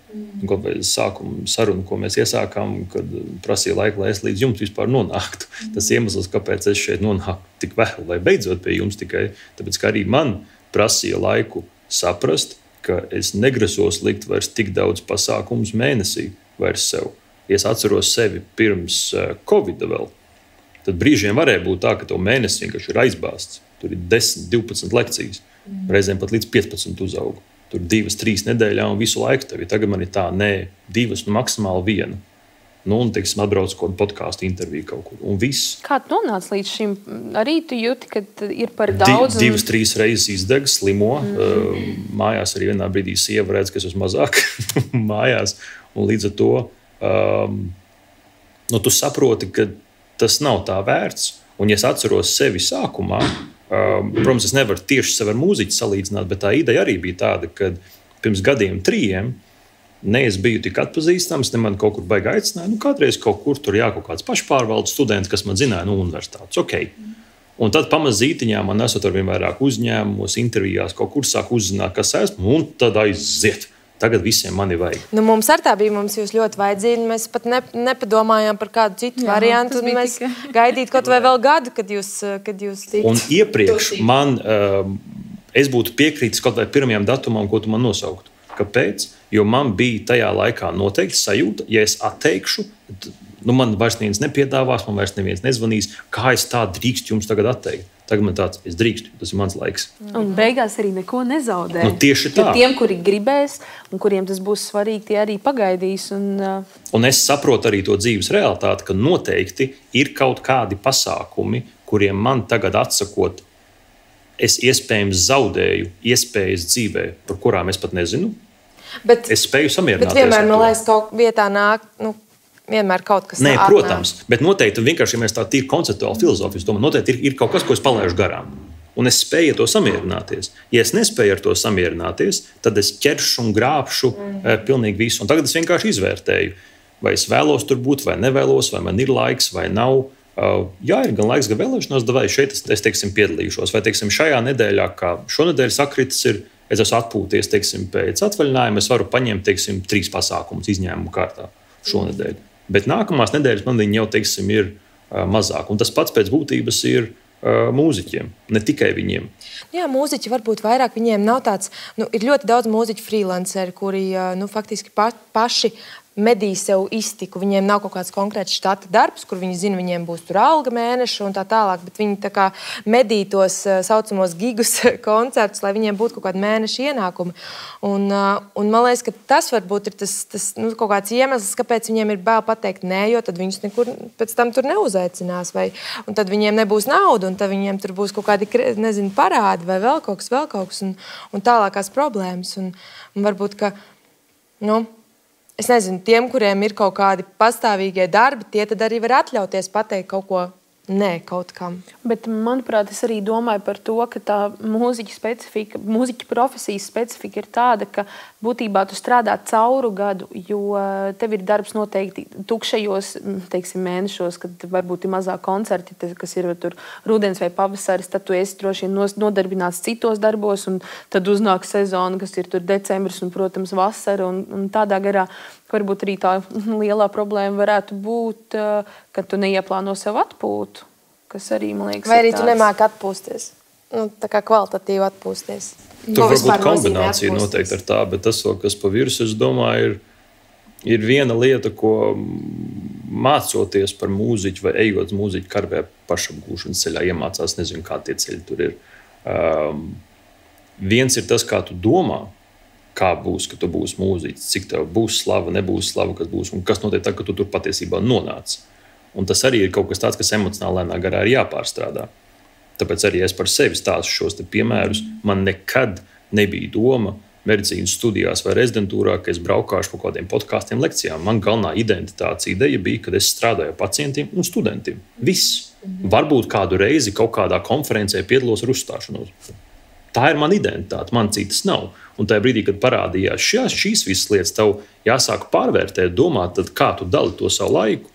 Kaut vai sākuma saruna, ko mēs iesākām, kad prasīja laiku, lai es līdz jums vispār nonāktu. Tas iemesls, kāpēc es šeit nonāku tik vēl, vai beidzot pie jums tikai, tāpēc, ka arī man prasīja laiku saprast, ka es negrasos likt vairs tik daudz pasākumus mēnesī vairs sev. Ja es atceros sevi pirms Covida vēl, tad brīžiem varēja būt tā, ka tev mēnesis vienkārši ir aizbāzts. Tur ir 10, 12 lekcijas, reizēm pat līdz 15 uzaugu. Tur 2-3 nedēļā un visu laiku tev. Tagad man ir tā, 2, maksimāli 1. Un, teiksim, atbrauc kaut kādu podkāstu interviju kaut kur. Un viss. Kā tu nonāc līdz šim? Arī tu jūti, ka ir par daudz? 2-3 reizes izdeg, slimo. Mājās arī vienā brīdī sieva redz, ka es esmu mazāk mājās. Un līdz ar to tu saproti, ka tas nav tā vērts. Un, ja es atceros sevi sākumā, protams, es nevaru tieši sevi ar mūziķi salīdzināt, bet tā ideja arī bija tāda, ka pirms 3 gadiem ne es biju tik atpazīstams, ne man kaut kur baigi aicināja. Kādreiz kaut kur tur kaut kāds pašpārvaldes students, kas man zināja, universitātes. Okay. Un tad pamazītiņā man esot ar vien vairāk uzņēmumos, intervijās, kaut kur sāk uzzināt, kas esmu, un tad aiziet. Tagad visiem mani vajag. Mums ar tā bija, mums jūs ļoti vajadzīgi. Mēs pat nepadomājām par kādu citu variantu. Mēs gaidītu kaut vai vēl gadu, kad jūs tiktu. Un iepriekš es būtu piekrītis kaut vai pirmajam datumam, ko tu man nosauktu. Kāpēc? Jo man bija tajā laikā noteikti sajūta, ja es atteikšu, man vairs neviens nepiedāvās, man vairs neviens nezvanīs, kā es tā drīkstu jums tagad atteikt. Tagad man tāds, es drīkstu, tas ir mans laiks. Un beigās arī neko nezaudē. Tieši tā. Jo tiem, kuri gribēs un kuriem tas būs svarīgi, tie arī pagaidīs. Un es saprotu arī to dzīves realitāti, ka noteikti ir kaut kādi pasākumi, kuriem man tagad atsakot, es iespējams zaudēju iespējas dzīvē, par kurām es pat nezinu. Es spēju samierināties. Bet vienmēr, man liekas, kaut vietā nāk, vienmēr kaut kas tāds. Protams, bet noteikti, vienkārši, ja mēs tā tīri konceptuāli filozofijas domājam, noteikti ir kaut kas, ko es palaižu garām. Un es spēju ar to samierināties. Ja es nespēju ar to samierināties, tad es ķeršu un grābšu pilnīgi visu. Un tagad es vienkārši izvērtēju, vai es vēlos tur būt, vai nevēlos, vai man ir laiks, vai nav. Jā, ir gan laiks, gan vēlēšanās, vai šeit es teiksim, piedalīšos. Vai teiksim, šajā nedēļā, kā šonedēļ sakritis ir, es esmu atpūties teiksim, pēc atvaļinājuma, es varu paņemt teiksim, 3 pasākumus izņēmumu kārtā šonedēļ. Bet nākamās nedēļas man viņi jau teiksim, ir mazāk. Un tas pats pēc būtības ir mūziķiem, ne tikai viņiem. Jā, mūziķi varbūt vairāk, viņiem nav tāds, ir ļoti daudz mūziķu freelanceri, kuri faktiski paši medī sev iztiku. Viņiem nav kaut kāds konkrēts štata darbs, kur viņi zina, viņiem būs tur alga mēneša un tā tālāk, bet viņi tā kā medī tos saucamos gigus koncertus, lai viņiem būtu kaut kādi mēneša ienākumi. Un man liekas, ka tas varbūt ir tas kaut kāds iemesls, kāpēc viņiem ir bail pateikt nē, jo tad viņus nekur pēc tam tur neuzaicinās. Un tad viņiem nebūs nauda, un tad viņiem tur būs kaut kādi, nezinu, parādi vai vēl kaut kas un tālākās problēmas. Un varbūt, ka, es nezinu, tiem, kuriem ir kaut kādi pastāvīgie darbi, tie tad arī var atļauties pateikt kaut ko nē, kaut kam. Bet, manuprāt, es arī domāju par to, ka tā mūziķa profesijas specifika ir tāda, ka būtībā tu strādā cauru gadu, jo tev ir darbs noteikti tukšajos, teiksim, mēnešos, kad varbūt ir mazāk koncerti, kas ir tur rudens vai pavasaris, tad tu esi droši vien nodarbināts citos darbos, un tad uznāk sezona, kas ir tur decembris un, protams, vasara, un tādā garā varbūt arī tā lielā problēma varētu būt, ka tu neieplāno sev atpūtu, kas arī, man liekas, vai arī tu nemāki atpūsties, tā kā kvalitatīvi atpūsties. Tur varbūt kombinācija noteikti ar tā, bet tas, kas pa virsmu, es domāju, ir viena lieta, ko mācoties par mūziķu vai ejot mūziķu karvē pašapgūšanas ceļā, iemācās, nezinu, kā tie ceļi tur ir. Viens ir tas, kā tu domā, kā būs, ka tu būsi mūziķis, cik tev būs slava, nebūs slava, kas būs, un kas notiek tā, ka tu tur patiesībā nonāc. Un tas arī ir kaut kas tāds, kas emocionāli lēnā garā ir jāpārstrādā. Tāpēc arī es par sevi stāstu šos piemērus. Man nekad nebija doma medicīnas studijās vai rezidentūrā, ka es braukāšu kaut kādiem podkāstiem, lekcijām. Man galvenā identitātes ideja bija, kad es strādāju ar pacientiem un studentiem. Viss. Varbūt kādu reizi kaut kādā konferencē piedalos ar uzstāšanos. Tā ir mana identitāte, man citas nav. Un tajā brīdī, kad parādījās šīs visas lietas, tev jāsāk pārvērtēt, domāt, tad kā tu dali to savu laiku,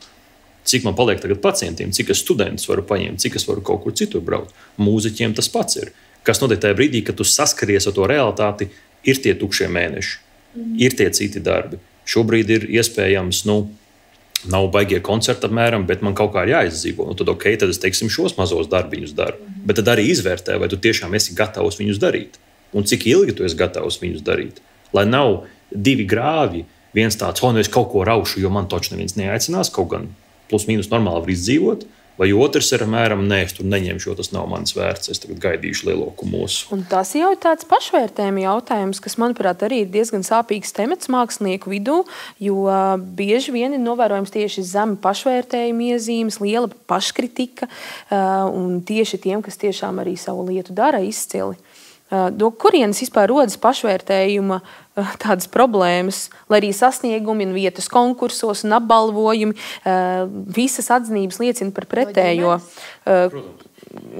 cik man paliek tagad pacientiem, cik es studentus varu paņemt, cik es varu kaut kur citur braukt. Mūziķiem tas pats ir. Kas notiek tajā brīdī, kad tu saskaries ar to realitāti, ir tie tukšie mēneši, ir tie citi darbi. Šobrīd ir iespējams, nav baigie koncerti apmēram, bet man kaut kā ir jāizdzīvo. Tad tad es teiksim, šos mazos darbiņus daru. Bet tad arī izvērtē, vai tu tiešām esi gatavs viņus darīt. Un cik ilgi tu esi gatavs viņus darīt. Lai nav 2 grāvi, viens tāds, es kaut ko raušu, jo man taču neviens neaicinās, kaut gan plus mīnus normāli var izdzīvot. Vai otrs ir apmēram, nē, es tur neņemšu, jo tas nav mans vērts, es tagad gaidīšu lielo kumosu. Un tas jau ir tāds pašvērtējuma jautājums, kas, manuprāt, arī ir diezgan sāpīgs temats mākslinieku vidū, jo bieži vien ir novērojams tieši zema pašvērtējuma iezīmes, liela paškritika, un tieši tiem, kas tiešām arī savu lietu dara izcili. No kurienes vispār rodas pašvērtējuma tādas problēmas, lai arī sasniegumi un vietas konkursos un apbalvojumi, visas atzinības liecina par pretējo.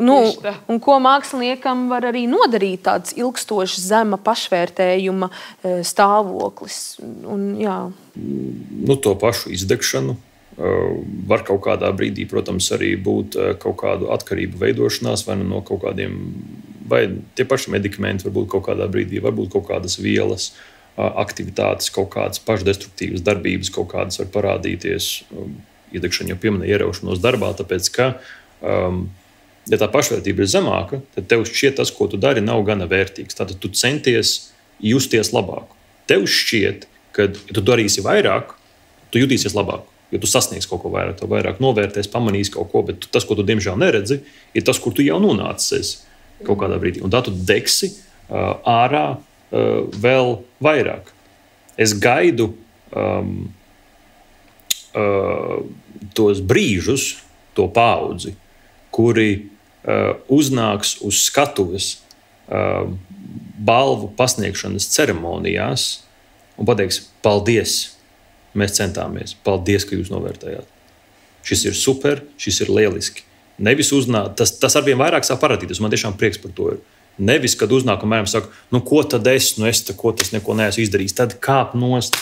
Un ko māksliniekam var arī nodarīt tāds ilgstošs zema pašvērtējuma stāvoklis. To pašu izdegšanu var kaut kādā brīdī, protams, arī būt kaut kādu atkarību veidošanās vai no kaut kādiem, vai tie paši medikamenti varbūt kaut kādā brīdī, varbūt kaut kādas vielas. aktivitātes, kaut kādas pašdestruktīvas darbības, kaut kādas var parādīties. Iedegšana jau pieminēja ieraušanos darbā, tāpēc, ka, ja tā pašvērtība ir zemāka, tad tev šķiet tas, ko tu dari, nav gana vērtīgs. Tātad tu centies justies labāk. Tev šķiet, ka, ja tu darīsi vairāk, tu jutīsies labāk. Jo tu sasniegsi kaut ko vairāk, tu vairāk novērtēsi, pamanīsi kaut ko, bet tas, ko tu diemžēl neredzi, ir tas, kur tu jau nonācies kaut kādā brīdī. Un tā tu degsi ārā vēl vairāk. Es gaidu tos brīžus, to paudzi, kuri uznāks uz skatuves balvu pasniegšanas ceremonijās un pateiks, paldies, mēs centāmies, paldies, ka jūs novērtējāt. Šis ir super, šis ir lieliski. Nevis uznāk, tas arvien vairāk sāk parādīties, man tiešām prieks par to ir. Nevis, kad uznāk un mēram saka, ko tad es neko neesmu izdarījis, tad kāp nost,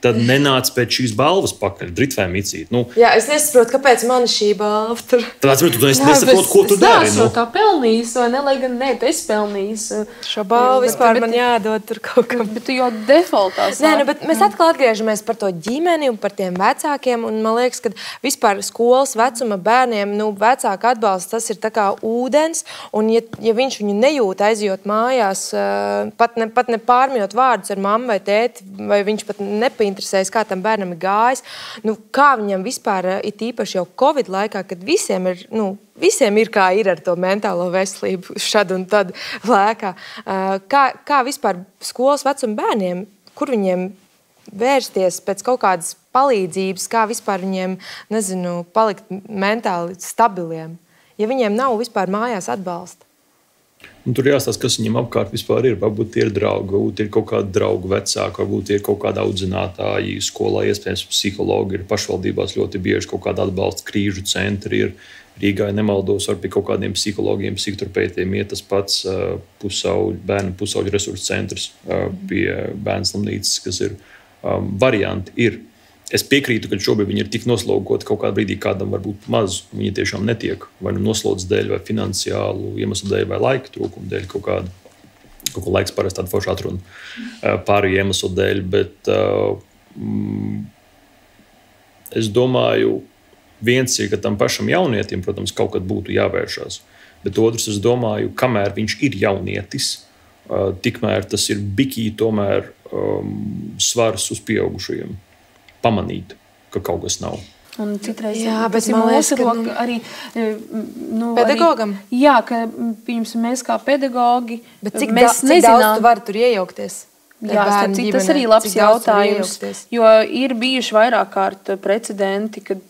tad nenāc pēc šīs balvas pakaļ, dritvēm icīt. Jā, es nesaprotu, kāpēc man šī balva tur. Tāpēc, tu nesaproti, ko tu dari. Es tā pelnījis, vai ne, lai gan ne, tu esi pelnījis. Šo balvu vispār man jādod tur kaut kam. Bet tu jau defaultā sāki. Nē, bet mēs atkal atgriežamies par to ģimeni un par tiem vecākiem, un man liekas, ka vispār skolas vecuma bērniem, vecāka atbalsts, tas ir tā kā ūdens, un ja viņš viņu nejūt aizjot mājās, pat ne pārmjot vārdus ar mammu vai tēti, vai viņš pat interesēs, kā tam bērnam ir gājis. Kā viņam vispār, it īpaši jau Covid laikā, kad visiem ir kā ir ar to mentālo veselību šad un tad lēkā. Kā vispār skolas vecuma bērniem, kur viņiem vērsties pēc kaut kādas palīdzības, kā vispār viņiem, palikt mentāli stabiliem, ja viņiem nav vispār mājās atbalsta? Un tur jāstāsta, kas viņam apkārt vispār ir. Varbūt ir draugi, varbūt ir kaut kādi draugu vecāki, varbūt ir kaut kāda audzinātāji skolā, iespējams psihologi, ir pašvaldībās ļoti bieži kaut kāda atbalsta krīžu centri. Ir Rīgā, ja nemaldos, var pie kaut kādiem psihologiem, psihoterapeitiem iet tas pats bērnu pusauģu resursu centrs pie bērnu slimnīcas, kas ir varianti. Ir. Es piekrītu, ka šobrīd viņi ir tik noslogoti kaut kādā brīdī, kādam var būt maz. Viņi tiešām netiek vai noslodzes dēļ, vai finansiālu iemeslu dēļ, vai laika trūkuma dēļ kaut ko laiks parasti tāda forša atruna pārējo iemeslu dēļ. Bet es domāju, viens ir, ka tam pašam jaunietim, protams, kaut kad būtu jāvēršās. Bet otrs, es domāju, kamēr viņš ir jaunietis, tikmēr tas ir bikī tomēr svars uz pieaugušajiem. Pamanīt, ka kaut kas nav. Un citreiz bet man liekas, ka arī pedagogam. Jā, ka mēs kā pedagogi, bet cik daudz tu vari tur iejaukties? Jā, tas arī labs jautājums, jo ir bijuši vairāk kārt precedenti, kad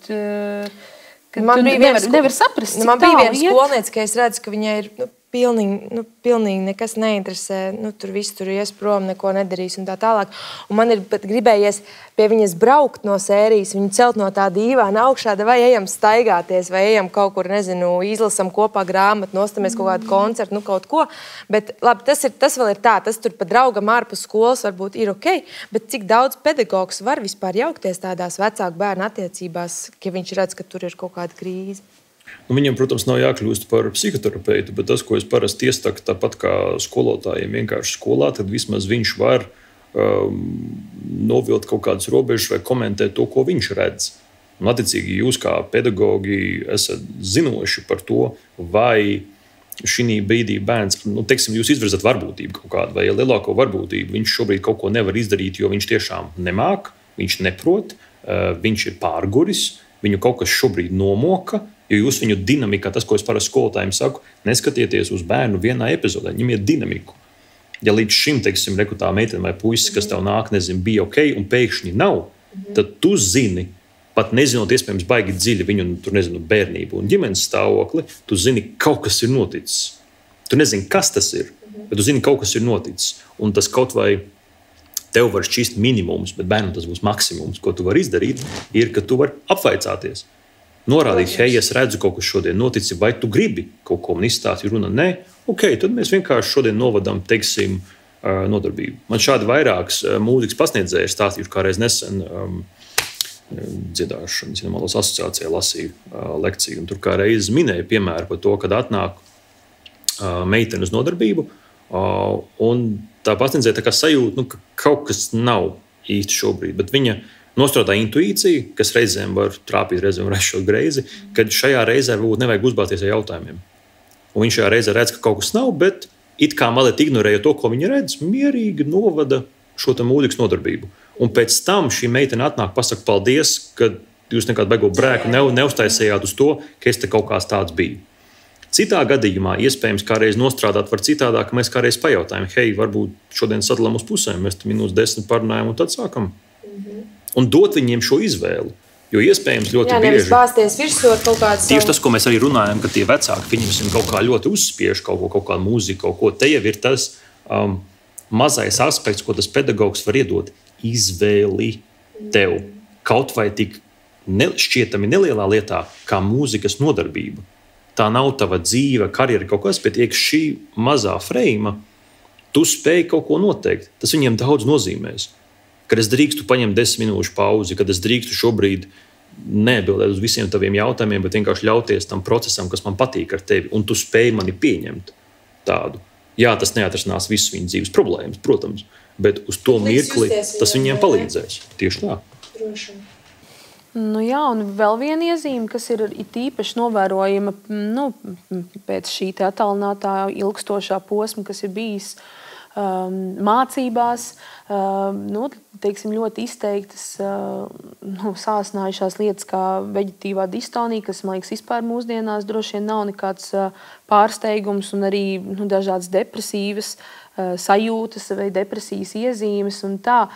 nevar saprast, cik man bija viena skolniece, ka es redzu, ka viņai ir pilnīgi nekas neinteresē, tur viss tur ies prom, neko nedarīs un tā tālāk. Un man ir pat gribējies pie viņas braukt no sērijas, viņu celt no tā dīvāna augšā, vai ejam staigāties, vai ejam kaut kur, izlasam kopā grāmatu, nostamies kaut kādu koncertu, kaut ko. Bet labi, tas vēl ir tā, tas tur pa draugam ārpus skolas varbūt ir ok, bet cik daudz pedagogs var vispār jaukties tādās vecāku bērnu attiecībās, ja viņš redz, ka tur ir kaut kāda krīze? Viņam, protams, nav jākļūst par psihoterapeitu, bet tas, ko es parasti iesaku, tāpat kā skolotājiem vienkārši skolā, tad vismaz viņš var novilkt kaut kādas robežas vai komentēt to, ko viņš redz. Un, attiecīgi, jūs kā pedagogi esat zinoši par to, vai šī brīdī bērns, jūs izvirzat varbūtību kaut kādu, vai lielāko varbūtību viņš šobrīd kaut ko nevar izdarīt, jo viņš tiešām nemāk, viņš neprot, viņš ir pārguris, viņu kaut kas šobrīd nomoka. Jo jūs viņu dinamikā, tas, ko es parasti skolotājiem saku, neskatieties uz bērnu vienā epizodē, ņemiet dinamiku. Ja līdz šim, teiksim, tā meitene vai puisis, kas tev nāk, bija ok, un pēkšņi nav, tad tu zini, pat nezinot iespējams baigi dziļi viņu, bērnību un ģimenes stāvokli, tu zini, kaut kas ir noticis. Tu nezini, kas tas ir, bet tu zini, kaut kas ir noticis. Un tas kaut vai tev var šķist minimums, bet bērnam tas būs maksimums, ko tu vari izdarīt, ir, ka tu vari apvaicāties. Norādīt, hei, es redzu, kaut kas šodien noticis, vai tu gribi kaut ko man izstāstīt, runa nē, ok, tad mēs vienkārši šodien novadām, teiksim, nodarbību. Man šādi vairākas mūzikas pasniedzēji ir stāstījuši, kā reiz nesen dziedāšanas asociācijā lasīju lekciju. Un tur kā reiz minēja piemēru par to, kad atnāk meitene uz nodarbību, Un tā pasniedzēja tā kā sajūta, ka kaut kas nav īsti šobrīd, bet viņa nostrādā intuīciju, kas reizēm var trāpīt, reizēm var aizšot greizi, kad šajā reizē varbūt nevajag uzbāzties ar jautājumiem. Un viņš šajā reizē redz, ka kaut kas nav, bet it kā mazliet ignorēja to, ko viņa redz, mierīgi novada šo mūzikas nodarbību. Un pēc tam šī meitene atnāk, pasaka paldies, ka jūs nekādu beigu brēku neuztaisījāt uz to, ka es te kaut kāds tāds biju. Citā gadījumā iespējams kādreiz nostrādāt var citādāk, ka mēs kādreiz pajautājam, hei, varbūt šodien sadalām uz pusēm, mēs minūtes 10 parunājam un tad sākam. Un dot viņiem šo izvēli. Jo iespējams ļoti bieži... nevis bāzties virsū ar kaut kādu... Tieši tas, ko mēs arī runājam, ka tie vecāki, viņiem kaut kā ļoti uzspiež kaut kādu mūziku, kaut ko. Te jau ir tas mazais aspekts, ko tas pedagogs var iedot. Izvēli tev. Kaut vai tik šķietami nelielā lietā, kā mūzikas nodarbība. Tā nav tava dzīve, karjera kaut kas, bet iekš šī mazā freima, tu spēj kaut ko noteikt. Tas viņiem daudz nozīmēs. Kad es drīkstu paņemt 10 minūšu pauzi, kad es drīkstu šobrīd neatbildēt uz visiem taviem jautājumiem, bet vienkārši ļauties tam procesam, kas man patīk ar tevi, un tu spēj mani pieņemt tādu. Jā, tas neatrisinās visas viņas dzīves problēmas, protams, bet uz to mirkli tas viņiem palīdzēs. Tieši tā. Droši. Nu jā, un vēl viena iezīme, kas ir īpaši novērojama pēc šī attālinātā ilgstošā posma, kas ir bijis mācībās, teiksim, ļoti izteiktas sāsinājušās lietas kā veģetīvā distonija, kas, man liekas, vispār mūsdienās droši vien nav nekāds pārsteigums, un arī dažādas depresīvas sajūtas vai depresijas iezīmes un tā.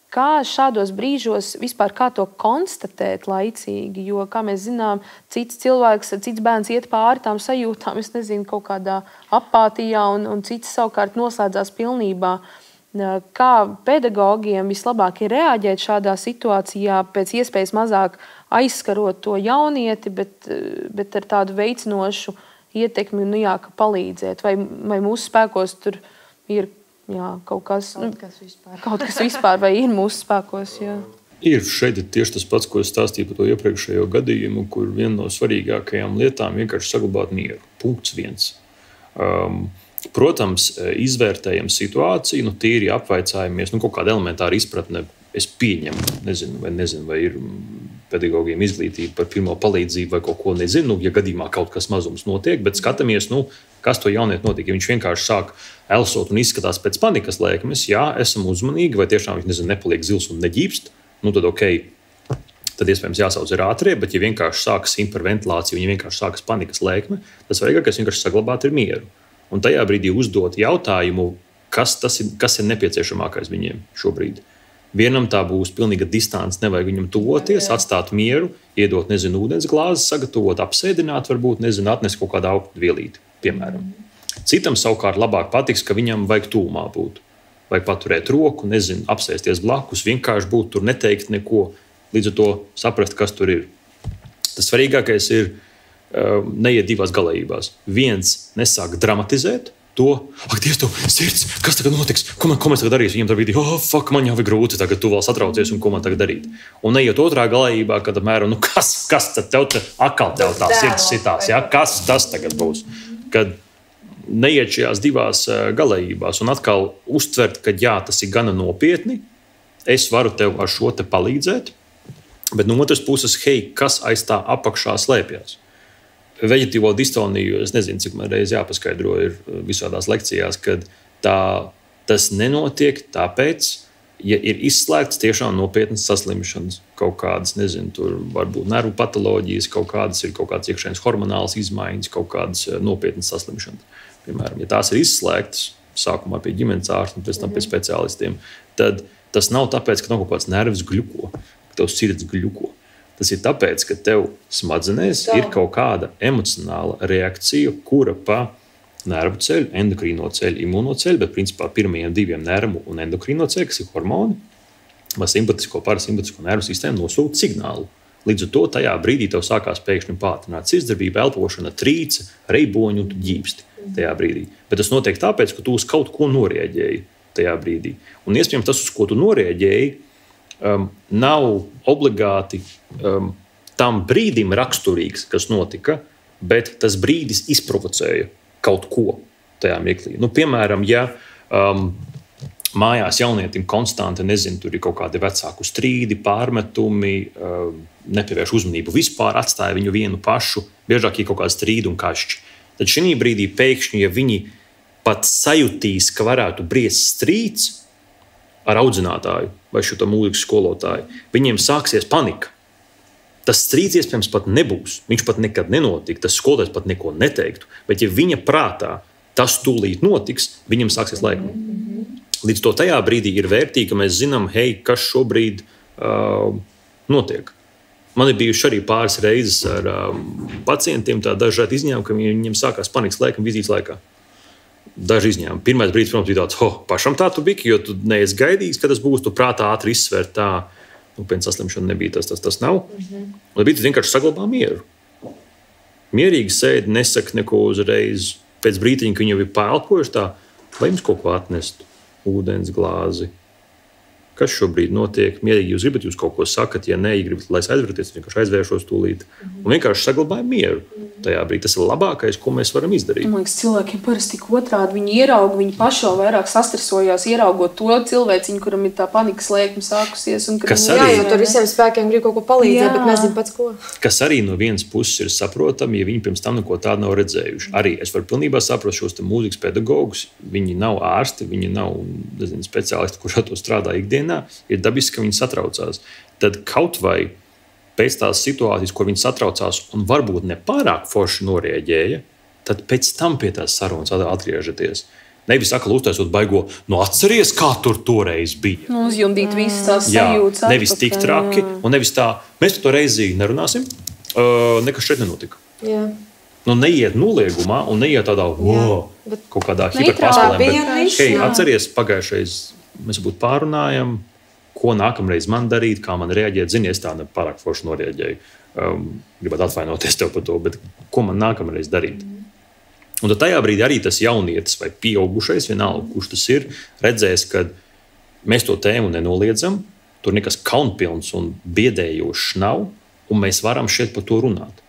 Kā šādos brīžos vispār kā to konstatēt laicīgi? Jo, kā mēs zinām, cits cilvēks, cits bērns iet pāri tām sajūtām, es nezinu, kaut kādā apātijā, un cits savukārt noslēdzās pilnībā. Kā pedagogiem vislabāk ir reaģēt šādā situācijā, pēc iespējas mazāk aizskarot to jaunieti, bet ar tādu veicinošu ietekmi, ka palīdzēt? Vai mūsu spēkos tur ir kaut kas vispār, vai ir mūsu spēkos? Jā. Ir šeit tieši tas pats, ko es stāstīju par to iepriekšējo gadījumu, kur viena no svarīgākajām lietām vienkārši saglabāt mieru. Punkts 1. Protams, izvērtējam situāciju, tīri apvaicājamies, kaut kāda elementāra izpratne. Es pieņemu, nezinu, vai ir pedagogiem izglītība par pirmo palīdzību vai kaut ko nezinu, ja gadījumā kaut kas mazums notiek, bet skatāmies, kas to jaunieti notiek. Ja viņš vienkārši sāk elsot un izskatās pēc panikas lēkmes, jā, esam uzmanīgi, vai tiešām viņš nepaliek zils un neģīpst, tad ok, tad iespējams jāsauc ir ātrie, bet ja vienkārši sākas hiperventilācija, ja vienkārši sākas panikas lēkme, tas svarīgākais vienkārši saglabāt ir mieru. Un tajā brīdī uzdot jautājumu, kas ir nepieciešamākais viņiem šobrīd. Vienam tā būs pilnīga distance, nevajag viņam tuvoties, atstāt mieru, iedot, ūdens glāzi, sagatavot, apsēdināt, varbūt, atnest kaut kādu augstu vielīti, piemēram. Citam savukārt labāk patiks, ka viņam vajag tūmā būt. Vajag paturēt roku, apsēsties blakus, vienkārši būt tur, neteikt neko, līdz ar to saprast, kas tur ir. Tas svarīgākais ir neiet divās galējībās. Viens nesāk dramatizēt, ak, Dievs, tev sirds, kas tagad notiks? Ko mēs tagad darīsim? Viņam tā brīdī, man jau ir grūti, tagad tu vēl satraucies, un ko man tagad darīt? Un neiet otrā galējībā, kad apmēram, kas tad tev atkal tev tā sirds sitās, ja? Kas tas tagad būs? Kad neiet šajās divās galējībās un atkal uztvert, ka jā, tas ir gana nopietni, es varu tev ar šo te palīdzēt, bet no otras puses, hei, kas aiz tā apakšā slēpjas? Veģetīvo distoniju, es nezinu, cik man reiz jāpaskaidro ir visādās lekcijās, kad tas nenotiek tāpēc, ja ir izslēgts tiešām nopietnas saslimšanas, kaut kādas, tur varbūt nervu patoloģijas, kaut kādas iekšējas hormonālas izmaiņas, kaut kādas nopietnas saslimšanas. Piemēram, ja tās ir izslēgtas, sākumā pie ģimenes ārsta un pēc tam pie speciālistiem, tad tas nav tāpēc, ka nav kaut kāds nervs gļuko, ka tev sirds gļuko. Tas ir tāpēc, ka tev smadzenēs ir kaut kāda emocionāla reakcija, kura pa nervu ceļu, endokrīno ceļu, imūno ceļu, bet principā pirmajiem diviem nervu un endokrīno ceļu, kas ir hormoni, vai simpatisko, parasimpatisko nervu sistēmu nosūta signālu. Līdz ar to tajā brīdī tev sākās pēkšņi pātrināt sirdsdarbība, elpošana, trīce, reiboņi un tu ģīpsti tajā brīdī. Bet tas notiek tāpēc, ka tu uz kaut ko norēģēji tajā brīdī. Un iespējams tas, uz ko tu norēģēji, nav obligāti tam brīdim raksturīgs, kas notika, bet tas brīdis izprovocēja kaut ko. tajā mirklī. Piemēram, ja mājās jaunietim konstanti, tur ir kaut kādi vecāku strīdi, pārmetumi, nepievērš uzmanību vispār, atstāja viņu vienu pašu, biežāk ir kaut kādi strīdi un kašķi. Tad šī brīdī pēkšņi, ja viņi pat sajutīs, ka varētu briest strīds ar audzinātāju vai šo mūzikas skolotāju, viņiem sāksies panika. Tas strīds iespējams pat nebūs. Viņš pat nekad nenotika. Tas skolotājs pat neko neteiktu. Bet, ja viņa prātā tas tūlīt notiks, viņam sāksies laikam. Līdz to tajā brīdī ir vērtīgi, ka mēs zinām, kas šobrīd notiek. Man ir bijuši arī pāris reizes ar pacientiem dažādi izņēmumi, ka viņiem sākās panikas laikam, vizītes laikā. Daži izņēmumi. Pirmais brīdis, protams, bija tāds, pašam tā tu biki, jo tu neesi gaidījis, ka tas būs, tu prātā ātri izsver tā. Pēc saslimšana nebija tas nav. Un bija vienkārši saglabā mieru. Mierīgi sēdi, nesaka neko uzreiz. Pēc brītiņa, ka viņi jau ir pēlpojuši tā, vai jums kaut ko atnest? Ūdens glāzi. Kas šobrīd notiek? Mierīgi jūs gribat, jūs kaut ko sakat, ja nē, gribat, lai es aizvērties, vienkārši aizvēršos tūlīt. Un vienkārši saglabāju mieru. Tajā brīdī tas ir labākais, ko mēs varam izdarīt. Man liekas, cilvēkiem parasti tik otrādi. Viņi ierauga, viņi paši vēl vairāk sastresojās, ieraugot to cilvēciņu, kuram ir tā panikas lēkme sākusies. Jo tur visiem spēkiem grib kaut ko palīdzēt, bet nezinu pats ko. Kas arī no vienas puses ir saprotami, ja viņi pirms tam neko tādu nav redzējuši. Arī es varu pilnībā saprast šos mūzikas pedagogus. Viņi nav ārsti, viņi nav speciālisti, kurš ar to strādā ikdienā. Ir dabiski, ka viņi satraucās. Tad kaut vai pēc tās situācijas, kur viņi satraucās un varbūt nepārāk forši norēģēja, tad pēc tam pie tās sarunas atgriežaties. Nevis atkal uztaisot baigo, atceries, kā tur toreiz bija. Uzjundīt visas tās sajūtas. Nevis tik traki, un nevis tā, mēs to reizi nerunāsim, nekas šeit nenotika. Jā. Neiet noliegumā un neiet tādā, kaut kādā hiperpāspēlēm, bet atceries, pagājušais mēs būtu pārunājam, ko nākamreiz man darīt, kā man reaģēt. Zini, es tā nepārāk forši norēģēju. Gribētu atvainoties tev par to, bet ko man nākamreiz darīt? Un tad tajā brīdī arī tas jaunietis vai pieaugušais, vienalga, kurš tas ir, redzēs, ka mēs to tēmu nenoliedzam, tur nekas kaunpilns un biedējošs nav, un mēs varam šeit par to runāt.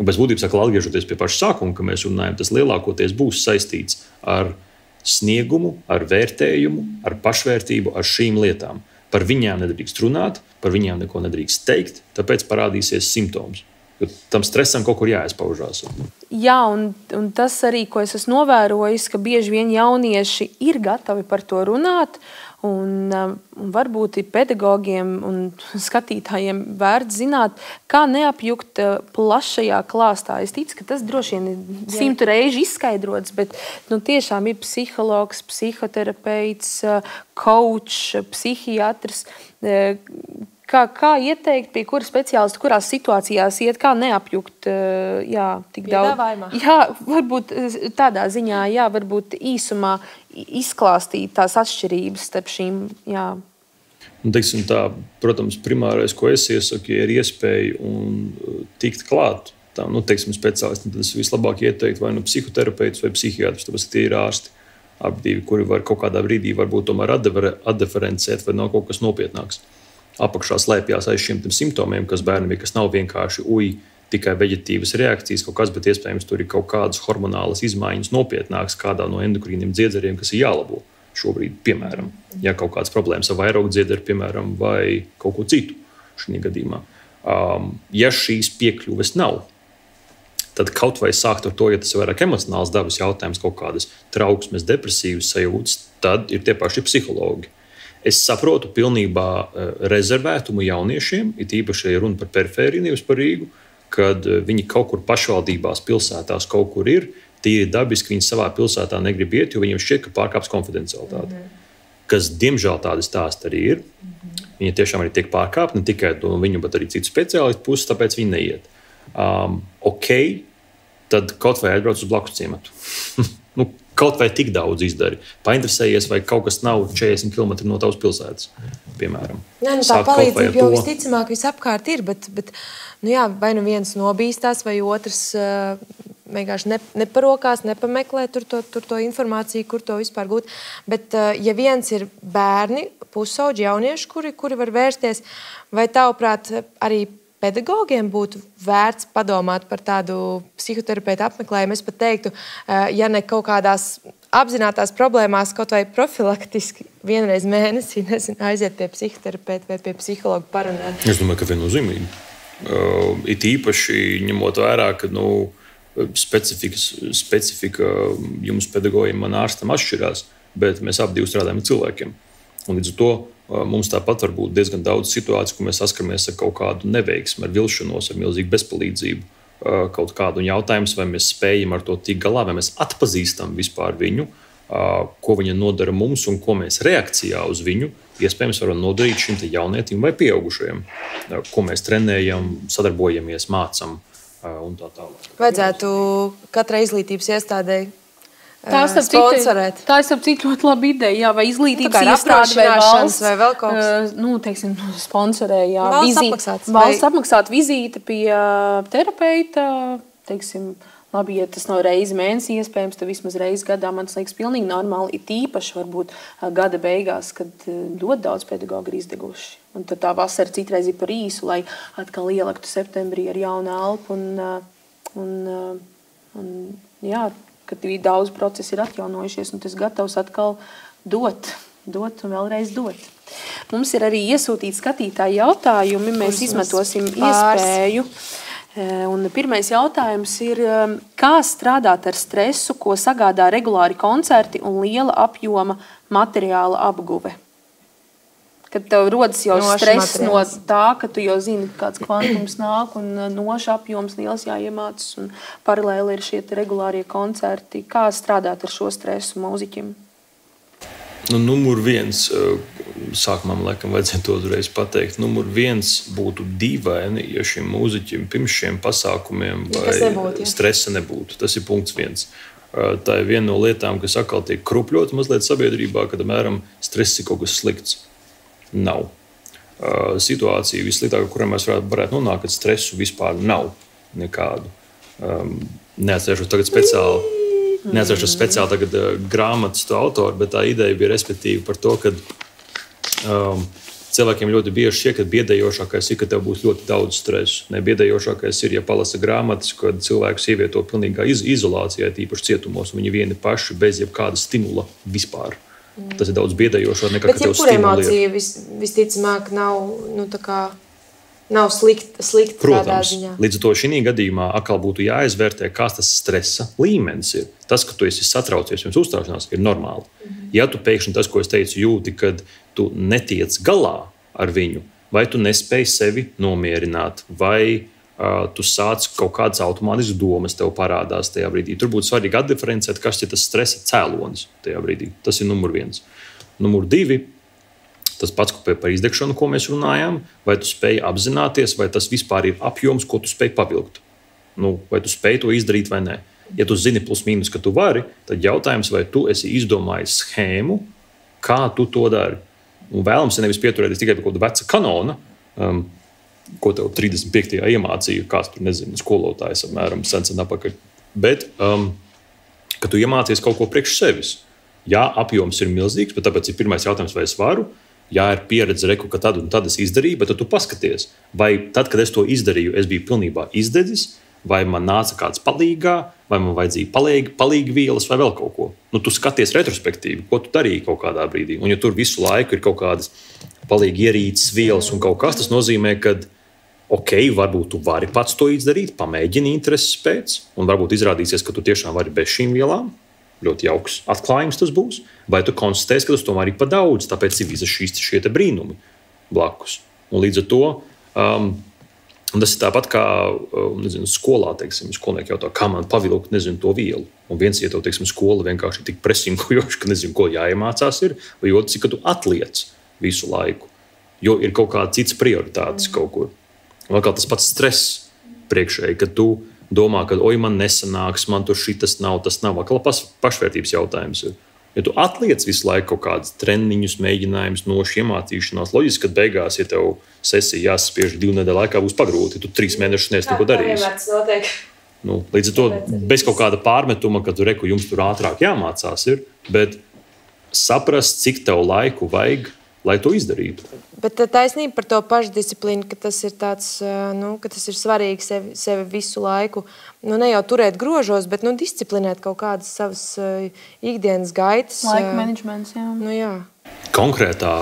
Un bez būtības, atgriežoties pie paša sākuma, ka mēs runājam, tas lielākoties būs saistīts ar sniegumu, ar vērtējumu, ar pašvērtību, ar šīm lietām. Par viņām nedrīkst runāt, par viņām neko nedrīkst teikt, tāpēc parādīsies simptoms. Jo tam stresam kaut kur jāizpaužās. Jā, un tas arī, ko es esmu novērojis, ka bieži vien jaunieši ir gatavi par to runāt, un varbūt ir pedagogiem un skatītājiem vērts zināt, kā neapjukt plašajā klāstā. Es ticu, ka tas droši vien ir 100 reižu izskaidrots, bet tiešām ir psihologs, psihoterapeits, coach, psihiatrs. Kā ieteikt, pie kura speciālista, kurās situācijās iet, kā neapjukt tik daudz? Jā, varbūt tādā ziņā, varbūt īsumā izklāstīt tās atšķirības starp šīm. Jā. Teiksim tā, protams, primārais, ko es iesaku, ir iespēja tikt klāt tam, speciālistiem. Tad es vislabāk ieteiktu vai psihoterapeits vai psihiatrs, tāpēc, ka tie ir ārsti. Abi divi, kuri var kaut kādā brīdī varbūt tomēr atdiferencēt, vai nav kaut kas nopietnāks. Apakšā slēpjas aiz šiem simptomiem, kas bērnam ir, kas nav vienkārši tikai veģetīvas reakcijas, kaut kas, bet iespējams tur ir kaut kādas hormonālas izmaiņas nopietnākas kādā no endokrīniem dziedzeriem, kas ir jālabo šobrīd, piemēram, ja kaut kādas problēmas ar vairogdziederi, piemēram, vai kaut ko citu šajā gadījumā. Ja šīs piekļuves nav, tad kaut vai sākt ar to, ja tas ir vairāk emocionāls dabas jautājums, kaut kādas trauksmes, depresīvas sajūtas, tad ir tie paši psihologi. Es saprotu pilnībā rezervētumu jauniešiem, it īpaši, ja runa par perifēriju, nevis par Rīgu, kad viņi kaut kur pašvaldībās, pilsētās kaut kur ir, tīri dabiski viņi savā pilsētā negrib iet, jo viņiem šķiet, ka pārkāps konfidencialitāti. Kas, diemžēl, tādi stāsti arī ir. Viņi tiešām arī tiek pārkāpti, ne tikai no viņu, bet arī citu speciālistu puses, tāpēc viņi neiet. Tad kaut vai atbrauc uz blakus ciematu. Kaut vai tik daudz izdari. Painteresējies, vai kaut kas nav 40 km no tavas pilsētas, piemēram. Tā palīdzība jau visticamāk visapkārt ir, bet vai viens nobīstās, vai otrs vienkārši neparokās, nepameklē tur to informāciju, kur to vispār gūt. Bet ja viens ir bērni, pusauģi, jaunieši, kuri var vērsties, vai tavuprāt arī pedagogiem būtu vērts padomāt par tādu psihoterapeitu apmeklējumu. Es pat teiktu, ja ne kaut kādās apzinātās problēmās, kaut vai profilaktiski vienreiz mēnesī aiziet pie psihoterapeita vai pie psihologa parunāt. Es domāju, ka viennozīmīgi. It īpaši ņemot vērā, ka specifika jums pedagogiem man ārstam atšķirās, bet mēs abi strādājam ar cilvēkiem. Un līdz ar to mums tāpat var būt diezgan daudz situāciju, kur mēs saskaramies ar kaut kādu neveiksmi, ar vilšanos, ar milzīgu bezpalīdzību. Kaut kādu jautājumu, vai mēs spējam ar to tikt galā, vai mēs atpazīstam vispār viņu, ko viņa nodara mums un ko mēs reakcijā uz viņu iespējams varam nodarīt šim jaunietim vai pieaugušajam, ko mēs trenējam, sadarbojamies, mācam un tā tālāk. Vajadzētu katrai izglītības iestādē tā sponsorēt. Tā ir citu ļoti laba ideja, jā, vai izglītības iestāde vai valsts vai vēl kaut kas. Teiksim, sponsorē, jā. Valsts apmaksāt vizīti pie terapeita, teiksim, labi, ja tas nav reizi mēnesī iespējams, tad vismaz reizi gadā, man tas liekas pilnīgi normāli, it īpaši varbūt gada beigās, kad ļoti daudz pedagogu ir izdeguši. Un tad tā vasara citreiz ir par īsu, lai atkal ielektu septembrī ar jaunu elpu un jā, kad daudz procesi ir atjaunojušies, un tas gatavs atkal dot un vēlreiz dot. Mums ir arī iesūtīti skatītāji jautājumi, mēs izmantosim iespēju. Un pirmais jautājums ir, kā strādāt ar stresu, ko sagādā regulāri koncerti un liela apjoma materiāla apguve? Kad tev rodas jau stress no tā, ka tu jau zini, kāds kvantums nāk un noša apjoms liels jāiemācas un paralēli ir šie regulārie koncerti. Kā strādāt ar šo stresu mūziķim? Numur viens, sākumā man laikam vajadzētu to uzreiz pateikt, numur viens būtu dīvaini, ja šim mūziķim pirms šiem pasākumiem vai stresa nebūtu. Tas ir punkts viens. Tā ir viena no lietām, kas atkal tiek krupļota mazliet sabiedrībā, kad, apmēram, stress ir kaut kas slikts. Nav. Situācija vissliktākā, kurā mēs varētu nonākt, kad stresu vispār nav nekādu. Neatcerēšos tagad speciāli tagad grāmatas to autoru, bet tā ideja bija respektīvi par to, ka cilvēkiem ļoti bieži šķiet, ka biedējošākais ir, ka tev būs ļoti daudz stresu. Biedējošākais ir, ja palasa grāmatas, kad cilvēkus ievieto pilnīgā izolācijā, tīpaši cietumos, un viņi vieni paši bez jebkāda stimula vispār. Tas ir daudz biedējošāk nekā, ka tev stimulē. Bet emocija visticamāk nav slikta tādā ziņā. Līdz ar to šī gadījumā atkal būtu jāizvērtē, kāds tas stresa līmenis ir. Tas, ka tu esi satraucies pirms uzstāšanās, ir normāli. Ja tu pēkšņi tas, ko es teicu, jūti, kad tu netiec galā ar viņu, vai tu nespēji sevi nomierināt, vai tu sāc kaut kādas automātiskas domas tev parādās tajā brīdī. Tur būtu svarīgi atdiferencēt, kas ir tas stresa cēlonis tajā brīdī. Tas ir numur viens. Numur divi, tas pats par izdegšanu, ko mēs runājām, vai tu spēj apzināties, vai tas vispār ir apjoms, ko tu spēj pavilkt. Vai tu spēj to izdarīt vai nē. Ja tu zini plus mīnus, ka tu vari, tad jautājums, vai tu esi izdomājis schēmu, kā tu to dari. Un vēlams nevis pieturēties tikai pie kaut kāda veca kanona, ko tev 35. iemācīja, kāds tur nezinu, skolotājs apmēram sen apakaļ. Bet, ka tu iemācies kaut ko priekš sevis. Jā, apjoms ir milzīgs, bet tāpēc ir pirmais jautājums, vai es varu. Jā, ir pieredze, ka tad un tad es izdarīju, bet tad tu paskaties, vai tad, kad es to izdarīju, es biju pilnībā izdedzis, vai man nāca kāds palīgā, vai man vajadzīja palīgi vielas vai vēl kaut ko. Tu skaties retrospektīvi, ko tu darīji kaut kādā brīdī. Un ja tur visu laiku ir kaut kādas palīgi ierīces vielas un kaut kas, tas nozīmē, ka varbūt tu vari pats to izdarīt, pamēģini intereses pēc, un varbūt izrādīsies, ka tu tiešām vari bez šīm vielām. Ļoti jauks atklājums tas būs. Vai tu konstatēsi, ka tas tomēr ir pa daudz, tāpēc ir visas šie brīnumi blakus. Un līdz ar to tas ir tāpat kā skolā, teiksim, skolnieki jautā, kā man pavilkt, to vielu. Un viens, ja tev, teiksim, skola vienkārši ir tik presingojoša, ka nezinu, ko jāiemācās ir, vai otrs, ka tu atliec visu laiku, jo ir kaut kāda cits prioritātes kaut kur. Un atkal tas pats stress priekšēji, kad tu domā, ka man nesanāks, man tur šitas nav, tas nav. Atkal pašvērtības jautājums ir. Ja tu atliec visu laiku kaut kādus treniņus, mēģinājumus, nošu iemācīšanās, loģiski, ka beigās, ja tev sesija jāsaspiež 2 nedēļu laikā, būs pagrūti, ja tu 3 mēnešus neesi neko darījis. Līdz ar to bez kaut kāda pārmetuma, ka tu reku jums tur ātrāk jāmācās ir, bet saprast, cik tev laiku vajag, lai to izdarītu. Bet taisnība par to pašdisciplīnu, ka tas ir tāds, ka tas ir svarīgi sevi visu laiku, ne jau turēt grožos, bet disciplinēt kaut kādas savas ikdienas gaitas. Laika menedžments, jā. Jā. Konkrētā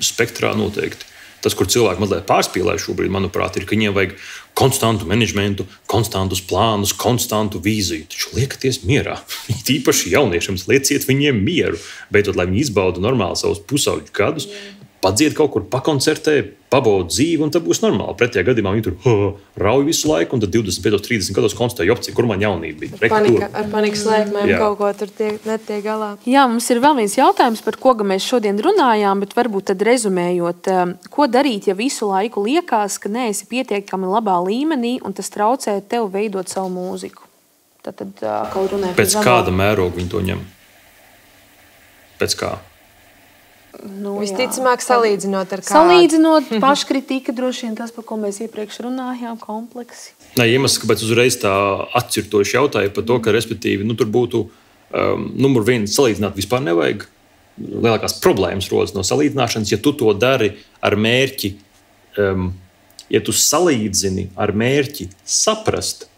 spektrā noteikti. Tas, kur cilvēki mazliet pārspīlē šobrīd, manuprāt, ir, ka viņiem vajag konstantu menedžmentu, konstantus plānus, konstantu vīziju. Taču liekaties mierā. Tīpaši jauniešiem lieciet viņiem mieru. Beidzot, lai viņi izbauda normāli savus pusauģu gadus, padzied kaut kur, pakoncertē, pabauda dzīvi, un tad būs normāli. Pretējā gadījumā viņi tur rauj visu laiku, un tad 25, 30 gados konstatē, jopci, kur man jaunība bija. Ar panikas lēkmēm kaut ko tur netiek galā. Jā, mums ir vēl viens jautājums, par ko mēs šodien runājām, bet varbūt tad rezumējot, ko darīt, ja visu laiku liekas, ka neesi pietiekami labā līmenī, un tas traucē tev veidot savu mūziku? Tad kaut runāja pēc kāda mēroga viņi to ņem? Pēc kā? Visticamāk, salīdzinot ar kādu. Salīdzinot, paškritika droši vien tas, par ko mēs iepriekš runājām, kompleksi. Iemesls, kāpēc uzreiz tā atcirtoši jautāja par to, ka, respektīvi, tur būtu numur 1 salīdzināt vispār nevajag. Lielākās problēmas rodas no salīdzināšanas, ja tu to dari ar mērķi, ja tu salīdzini ar mērķi saprast,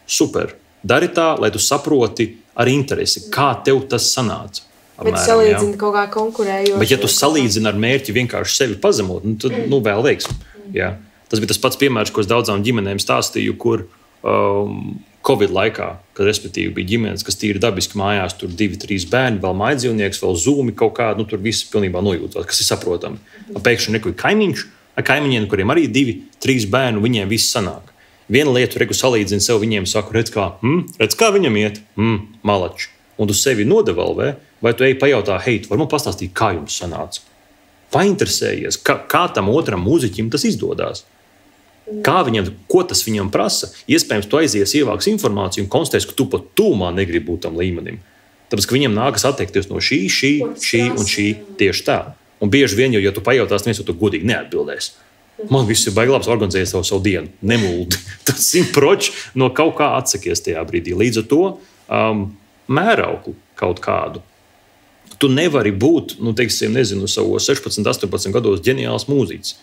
super, dari tā, lai tu saproti ar interesi, kā tev tas sanāca. Bet salīdzini kaut kā konkurējoši. Bet ja tu salīdzini ar mērķi vienkārši sevi pazemot, tad vēl veiksmi. Jā. Tas bija tas pats piemērs, ko es daudzām ģimenēm stāstīju, kur Covid laikā, kad respektīvi bija ģimenes, kas tīri dabiski mājās, tur 2-3 bērni, vēl mājdzīvnieks, vēl zūmi kaut kādu, tur viss pilnībā nojūtās, kas ir saprotami. Pēkšņi neko kaimiņš, ar kaimiņiem, kuriem arī 2-3 bērnu, viņiem viss sanāk. Viena lieta, reku salīdzini sev, viņiem saku, redz kā viņam iet, malači. Un tu sevi nodevalvē, vai tu ej pajautā, hei, tu vari man pastāstīt, kā jums sanāca? Painteresējies, kā tam otram mūziķim tas izdodās? Kā viņam, ko tas viņam prasa? Iespējams, tu aizies, ievāks informāciju un konstatēs, ka tu pat tūmā negribi būt tam līmenim. Tāpēc, ka viņam nākas atteikties no šī un šī tieši tā. Un bieži vien, ja tu pajautās, neviens to godīgi neatbildēs. Man viss ir baigi labs organizēt savu dienu. Nemuldi. Tas 100% no kaut kā atsakies tajā brīdī. Līdz ar to mērauklu kaut kādu. Tu nevari būt, savos 16, 18 gados ģeniāls mūziķis.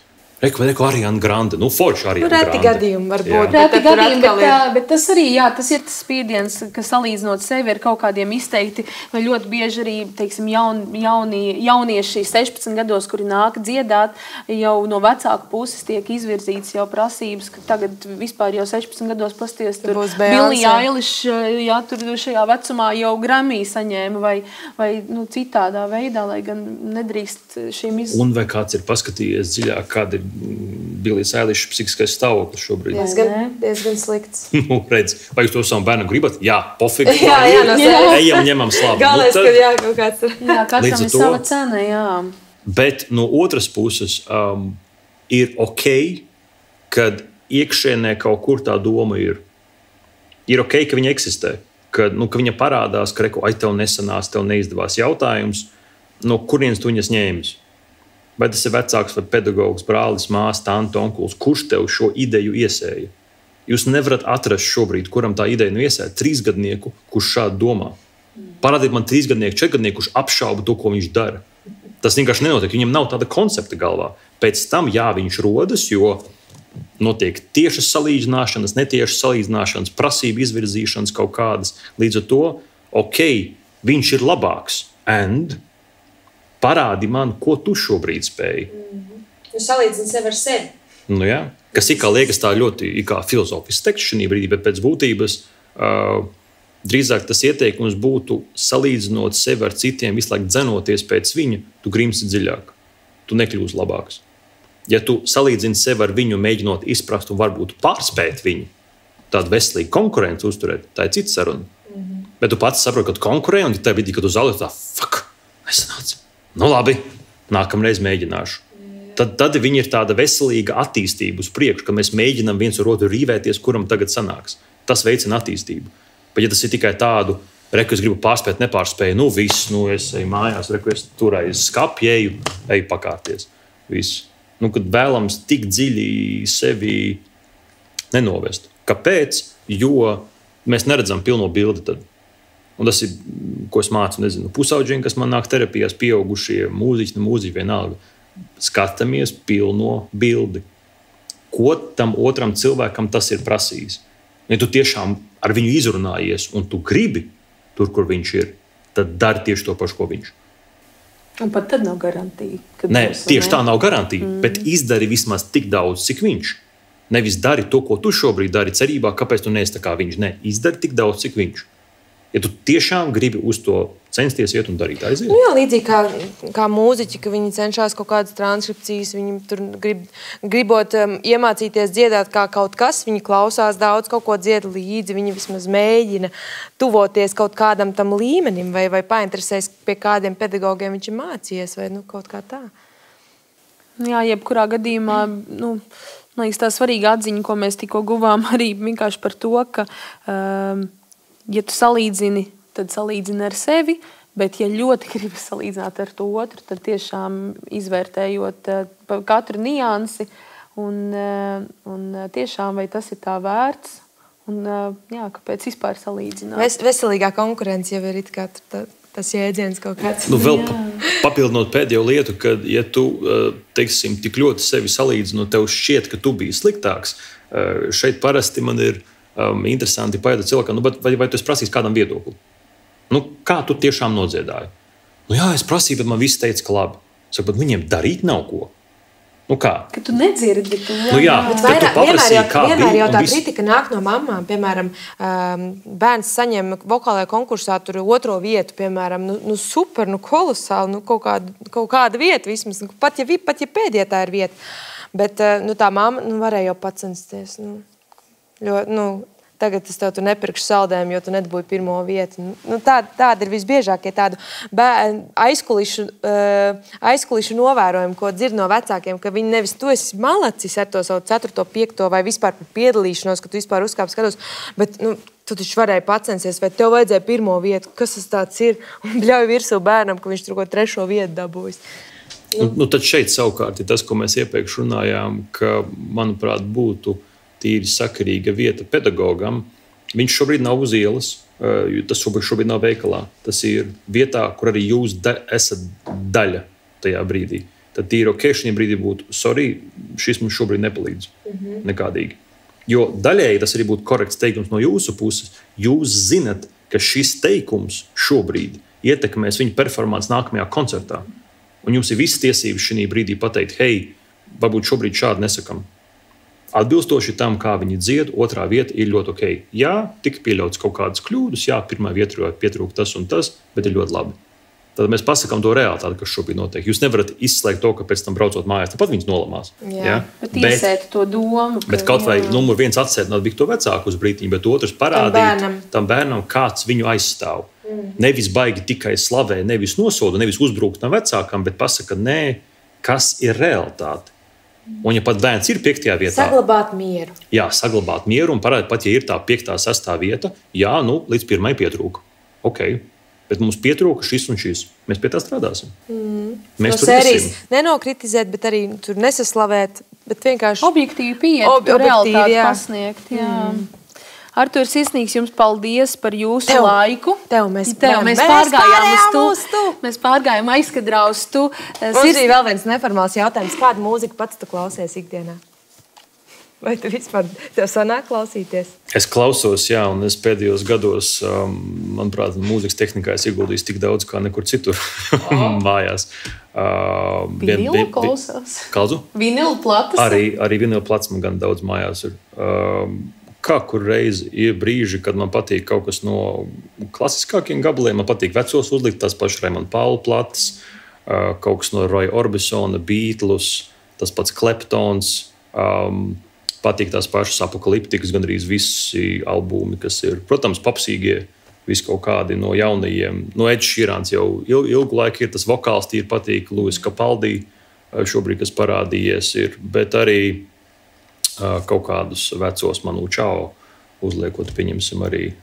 Reku Ariana Grande, forši Ariana Grande. Reti gadījumi varbūt. Reti gadījumi, bet tas arī, tas ir tas spiediens, ka salīdzinot sevi ar kaut kādiem izteikti, vai ļoti bieži arī, teiksim, jaunieši 16 gados, kuri nāk dziedāt, jau no vecāku puses tiek izvirzīts jau prasības, ka tagad vispār jau 16 gados pasties tur Billie Eilish, tur šajā vecumā jau Grammy saņēma vai citādā veidā, lai gan nedrīkst šīm Un vai kāds ir paskatījies dziļāk, kāda ir Billie Eilish psihiskais stāvoklis šobrīd? Diezgan slikts. Redz, vai jūs to savam bērnam gribat? Jā, pofīgi. Ejam, ņemam slavu. Galvenais, ka kaut kāds ir. Jā, katram ir sava cena, jā. Bet no otras puses ir ok, kad iekšēnē kaut kur tā doma ir. Ir ok, ka viņa eksistē. Ka viņa parādās, ka tev nesanās, tev neizdevās jautājums, no kurienes tu viņas ņēmis. Vai tas ir vecāks vai pedagogs, brālis, māsa, tante, onkulis, kurš tev šo ideju iesēja? Jūs nevarat atrast šobrīd, kuram tā ideja iesēja 3-gadnieku, kurš šādi domā. Parādiet man 3-gadnieku, 4-gadnieku, kurš apšauba to, ko viņš dara. Tas vienkārši nenotiek, viņam nav tāda koncepta galvā. Pēc tam, viņš rodas, jo notiek tiešas salīdzināšanas, netiešas salīdzināšanas, prasību izvirzīšanas kaut kādas. Līdz ar to, ok, viņš ir labāks. Parādi man, ko tu šobrīd spēj. Salīdzini sevi ar sevi. Jā. Kas liekas tā ļoti filozofisks teksts šajā brīdī, bet pēc būtības drīzāk tas ieteikums būtu salīdzinot sevi ar citiem, visu laiku dzenoties pēc viņa, tu grimsti dziļāk. Tu nekļūsi labāks. Ja tu salīdzini sevi ar viņu, mēģinot izprast un varbūt pārspēt viņu, tādu veselīgu konkurenci uzturēt, tā ir cita saruna. Bet tu pats saproti, ka tu konkurē, un tajā brīdī, kad tu zaudē, tā nesanāca. Labi, nākamreiz mēģināšu. Tad viņi ir tāda veselīga attīstība uz priekšu, ka mēs mēģinām viens ar otru rīvēties, kuram tagad sanāks. Tas veicina attīstību. Bet ja tas ir tikai tādu, es gribu pārspēt, nepārspēju, viss, es eju mājās, es tur aiz skapju, eju pakārties. Viss. Kad vēlams tik dziļi sevi nenovest. Kāpēc? Jo mēs neredzam pilno bildi tad. Un tas ir, ko es mācu, nezinu, pusauģiem, kas man nāk terapijās, pieaugušie mūziķi, vienalga. Skatāmies pilno bildi. Ko tam otram cilvēkam tas ir prasījis? Ja tu tiešām ar viņu izrunājies un tu gribi tur, kur viņš ir, tad dari tieši to pašu, ko viņš. Un pat tad nav garantija. Nē, tieši tā nav garantija, bet izdari vismaz tik daudz, cik viņš. Nevis dari to, ko tu šobrīd dari cerībā, kāpēc tu neesi tā kā viņš. Nē, izdari tik daudz, cik viņš. Ja tu tiešām gribi uz to censties iet un darīt, aiziet. Nu jā, līdzīgi kā mūziķi, ka viņi cenšas kaut kādas transkripcijas, viņi tur gribot iemācīties dziedāt kā kaut kas, viņi klausās daudz, kaut ko dzied līdzi, viņi vismaz mēģina tuvoties kaut kādam tam līmenim vai painteresēs, pie kādiem pedagogiem viņš ir mācījies vai kaut kā tā. Jā, jebkurā gadījumā, man liekas, tā svarīga atziņa, ko mēs tikko guvām arī vienkārši par to, ka ja tu salīdzini, tad salīdzini ar sevi, bet ja ļoti gribi salīdzināt ar to otru, tad tiešām izvērtējot katru niansi un tiešām vai tas ir tā vērts un jā, kāpēc vispār salīdzināt. Veselīgā konkurence jau ir it kā tas jēdziens kaut kāds. Vēl papildinot pēdējo lietu, kad ja tu, teiksim, tik ļoti sevi salīdzini, tev šķiet, ka tu biji sliktāks, šeit parasti man ir interesanti pajautāt cilvēkam, vai tu esi prasījis kādam viedokli? Kā tu tiešām nodziedāji? Jā, es prasīju, bet man visi teica, ka labi. Saku, bet viņiem darīt nav ko. Kā? Ka tu nedzirdi to. Jā, tad tu paprasīji, kā bija. Vienmēr jau tā kritika nāk no mamām. Piemēram, bērns saņem vokālajā konkursā tur 2. vietu, piemēram, super, kolosāli, kaut kāda vieta vismaz. Pat ja pēdējā tā ir vieta. Bet tā mamma varēja jau pacensties. Tagad es tev tu nepirkšu saldējumu, jo tu nedabūji 1. vietu. Tāda ir visbiežākie tādu aizkulišu novērojumi, ko dzird no vecākiem, ka viņi nevis tu esi malacis ar to savu 4., 5. vai vispār par piedalīšanos, ka tu vispār uzkāp skatos, bet tu taču varēji pacensties, vai tev vajadzēja 1. vietu, kas tas tāds ir, un bļauj virsū bērnam, ka viņš tur ko 3. vietu dabūjis. Tad šeit savukārt ir tas, ko mēs iepriekš runājām, ka, manuprāt, būtu tīri sakarīga vieta pedagogam. Viņš šobrīd nav uz ielas, tas šobrīd nav veikalā. Tas ir vietā, kur arī jūs esat daļa tajā brīdī. Tad tīri ok, šajā brīdī būtu, sorry, šis mums šobrīd nepalīdz nekādīgi. Jo daļēji tas arī būtu korekts teikums no jūsu puses. Jūs zinat, ka šis teikums šobrīd ietekmēs viņa performanci nākamajā koncertā. Un jums ir visas tiesības šajā brīdī pateikt, hei, varbūt šobrīd šādi nesakam. Atbilstoši tam, kā viņi dzied, 2. vieta ir ļoti ok. Jā, tika pieļauts kaut kādas kļūdas, jā, 1. vietā pietrūka tas un tas, bet ir ļoti labi. Tad mēs pasakām to realitāti, kas šobrīd notiek. Jūs nevarat izslēgt to, ka pēc tam braucot mājās, tāpat viņas nolamās. Jā, bet iesēt to domu. Bet kaut vai numur 1 atsēdināt bija to vecāku uz brītiņu, bet otrs parādīt tam bērnam, kāds viņu aizstāv. Nevis baigi tikai slavē, nevis nosoda, nevis uzbrukt tam vecākam, bet pasaka, nē, kas ir realitāte. Un ja pat bērns ir 5. vietā, saglabāt mieru. Jā, saglabāt mieru un parādīt, pat ja ir tā 5., 6. vieta, jā, līdz 1. pietrūka. Ok, bet mums pietrūka šis un šis. Mēs pie tā strādāsim. Mēs no sērijas nenokritizēt, bet arī tur nesaslavēt, bet vienkārši objektīvi pieiet, realitāti pasniegt. Jā. Artur, sirsnīgs jums paldies par jūsu laiku. Mēs pārgājām aizkadrā uz tu. Mums bija vēl viens neformāls jautājums. Kādu mūziku pats tu klausies ikdienā? Vai tu vispār tev sanāk klausīties? Es klausos, jā, un es pēdējos gados, manuprāt, mūzikas tehnikā es ieguldījis tik daudz, kā nekur citur mājās. Vinilu klausās? Kādu? Vinilu platas? Arī vinilu plats man gan daudz mājās ir. Kā kur reizi ir brīži, kad man patīk kaut kas no klasiskākiem gabaliem. Man patīk vecos uzlikt, tās pašas Raimond Paula plates, kaut kas no Roya Orbisona, Beatles, tas pats Kleptons. Patīk tās pašas Apokaliptikas, gandrīz visi albumi, kas ir, protams, popsīgie, visi kaut kādi no jaunajiem. No Ed Sheerans jau ilgu laiku ir tas vokāls, tīri patīk, Luis Capaldi šobrīd, kas parādījies ir, bet arī kaut kādus vecos Manu Chao uzliekot, pieņemsim arī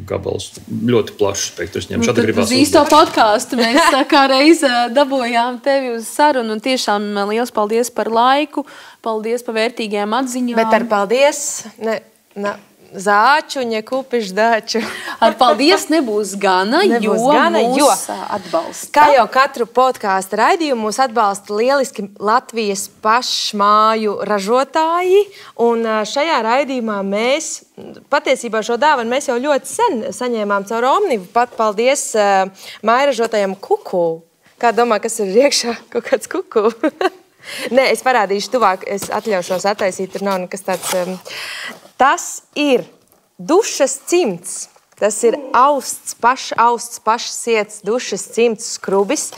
gabals. Ļoti plašs spektrs ņem. Tad uz īsto podcastu mēs kā reiz dabojām tevi uz sarunu un tiešām liels paldies par laiku, paldies par vērtīgajām atziņām. Bet ar paldies zāčuņa kupišdaču. Ar paldies nebūs gana, jo atbalsta. Kā jau katru podkāstu raidījumu mūs atbalsta lieliski Latvijas pašmāju ražotāji. Un šajā raidījumā mēs, patiesībā šo dāvanu mēs jau ļoti sen saņēmām caur Omnivu. Pat paldies mājražotājam Kuku. Kā domā, kas ir iekšā? Kaut kāds Kuku? Nē, es parādīšu tuvāk, es atļaušos attaisīt, tur nav nekas tāds. Tas ir dušas cimds. Tas ir austs, pašsiets dušas cimds skrubis.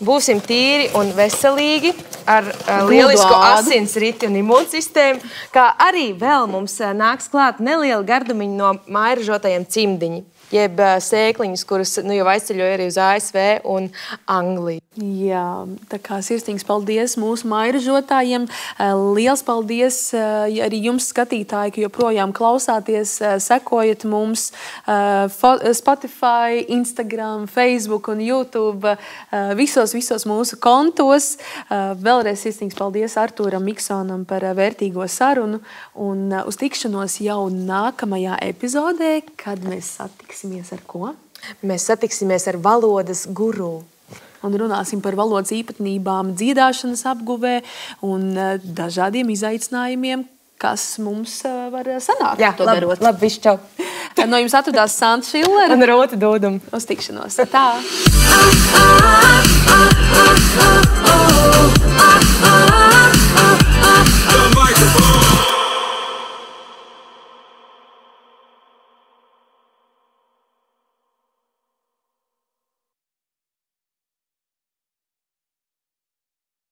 Būsim tīri un veselīgi ar lielisku asinsriti un imūnsistēmu, kā arī vēl mums nāks klāt neliela gardumiņa no mājražotajiem cimdiņi. Jeb sēkliņas, kuras jau aizceļoja arī uz ASV un Angliju. Jā, tā kā sirsnīgs paldies mūsu mājražotājiem. Liels paldies arī jums, skatītāji, ka joprojām klausāties, sekojat mums Spotify, Instagram, Facebook un YouTube, visos mūsu kontos. Vēlreiz sirsnīgs paldies Artūram Miksonam par vērtīgo sarunu un uz tikšanos jau nākamajā epizodē, kad mēs satiksimies ar ko? Mēs satiksimies ar valodas guru. Un runāsim par valodas īpatnībām, dziedāšanas apguvē un dažādiem izaicinājumiem, kas mums var sanākt. Jā, to darot. Labi, viss čau. No jums atradās Santa Šillera un Rota Dūduma. Uz tikšanos. Tā.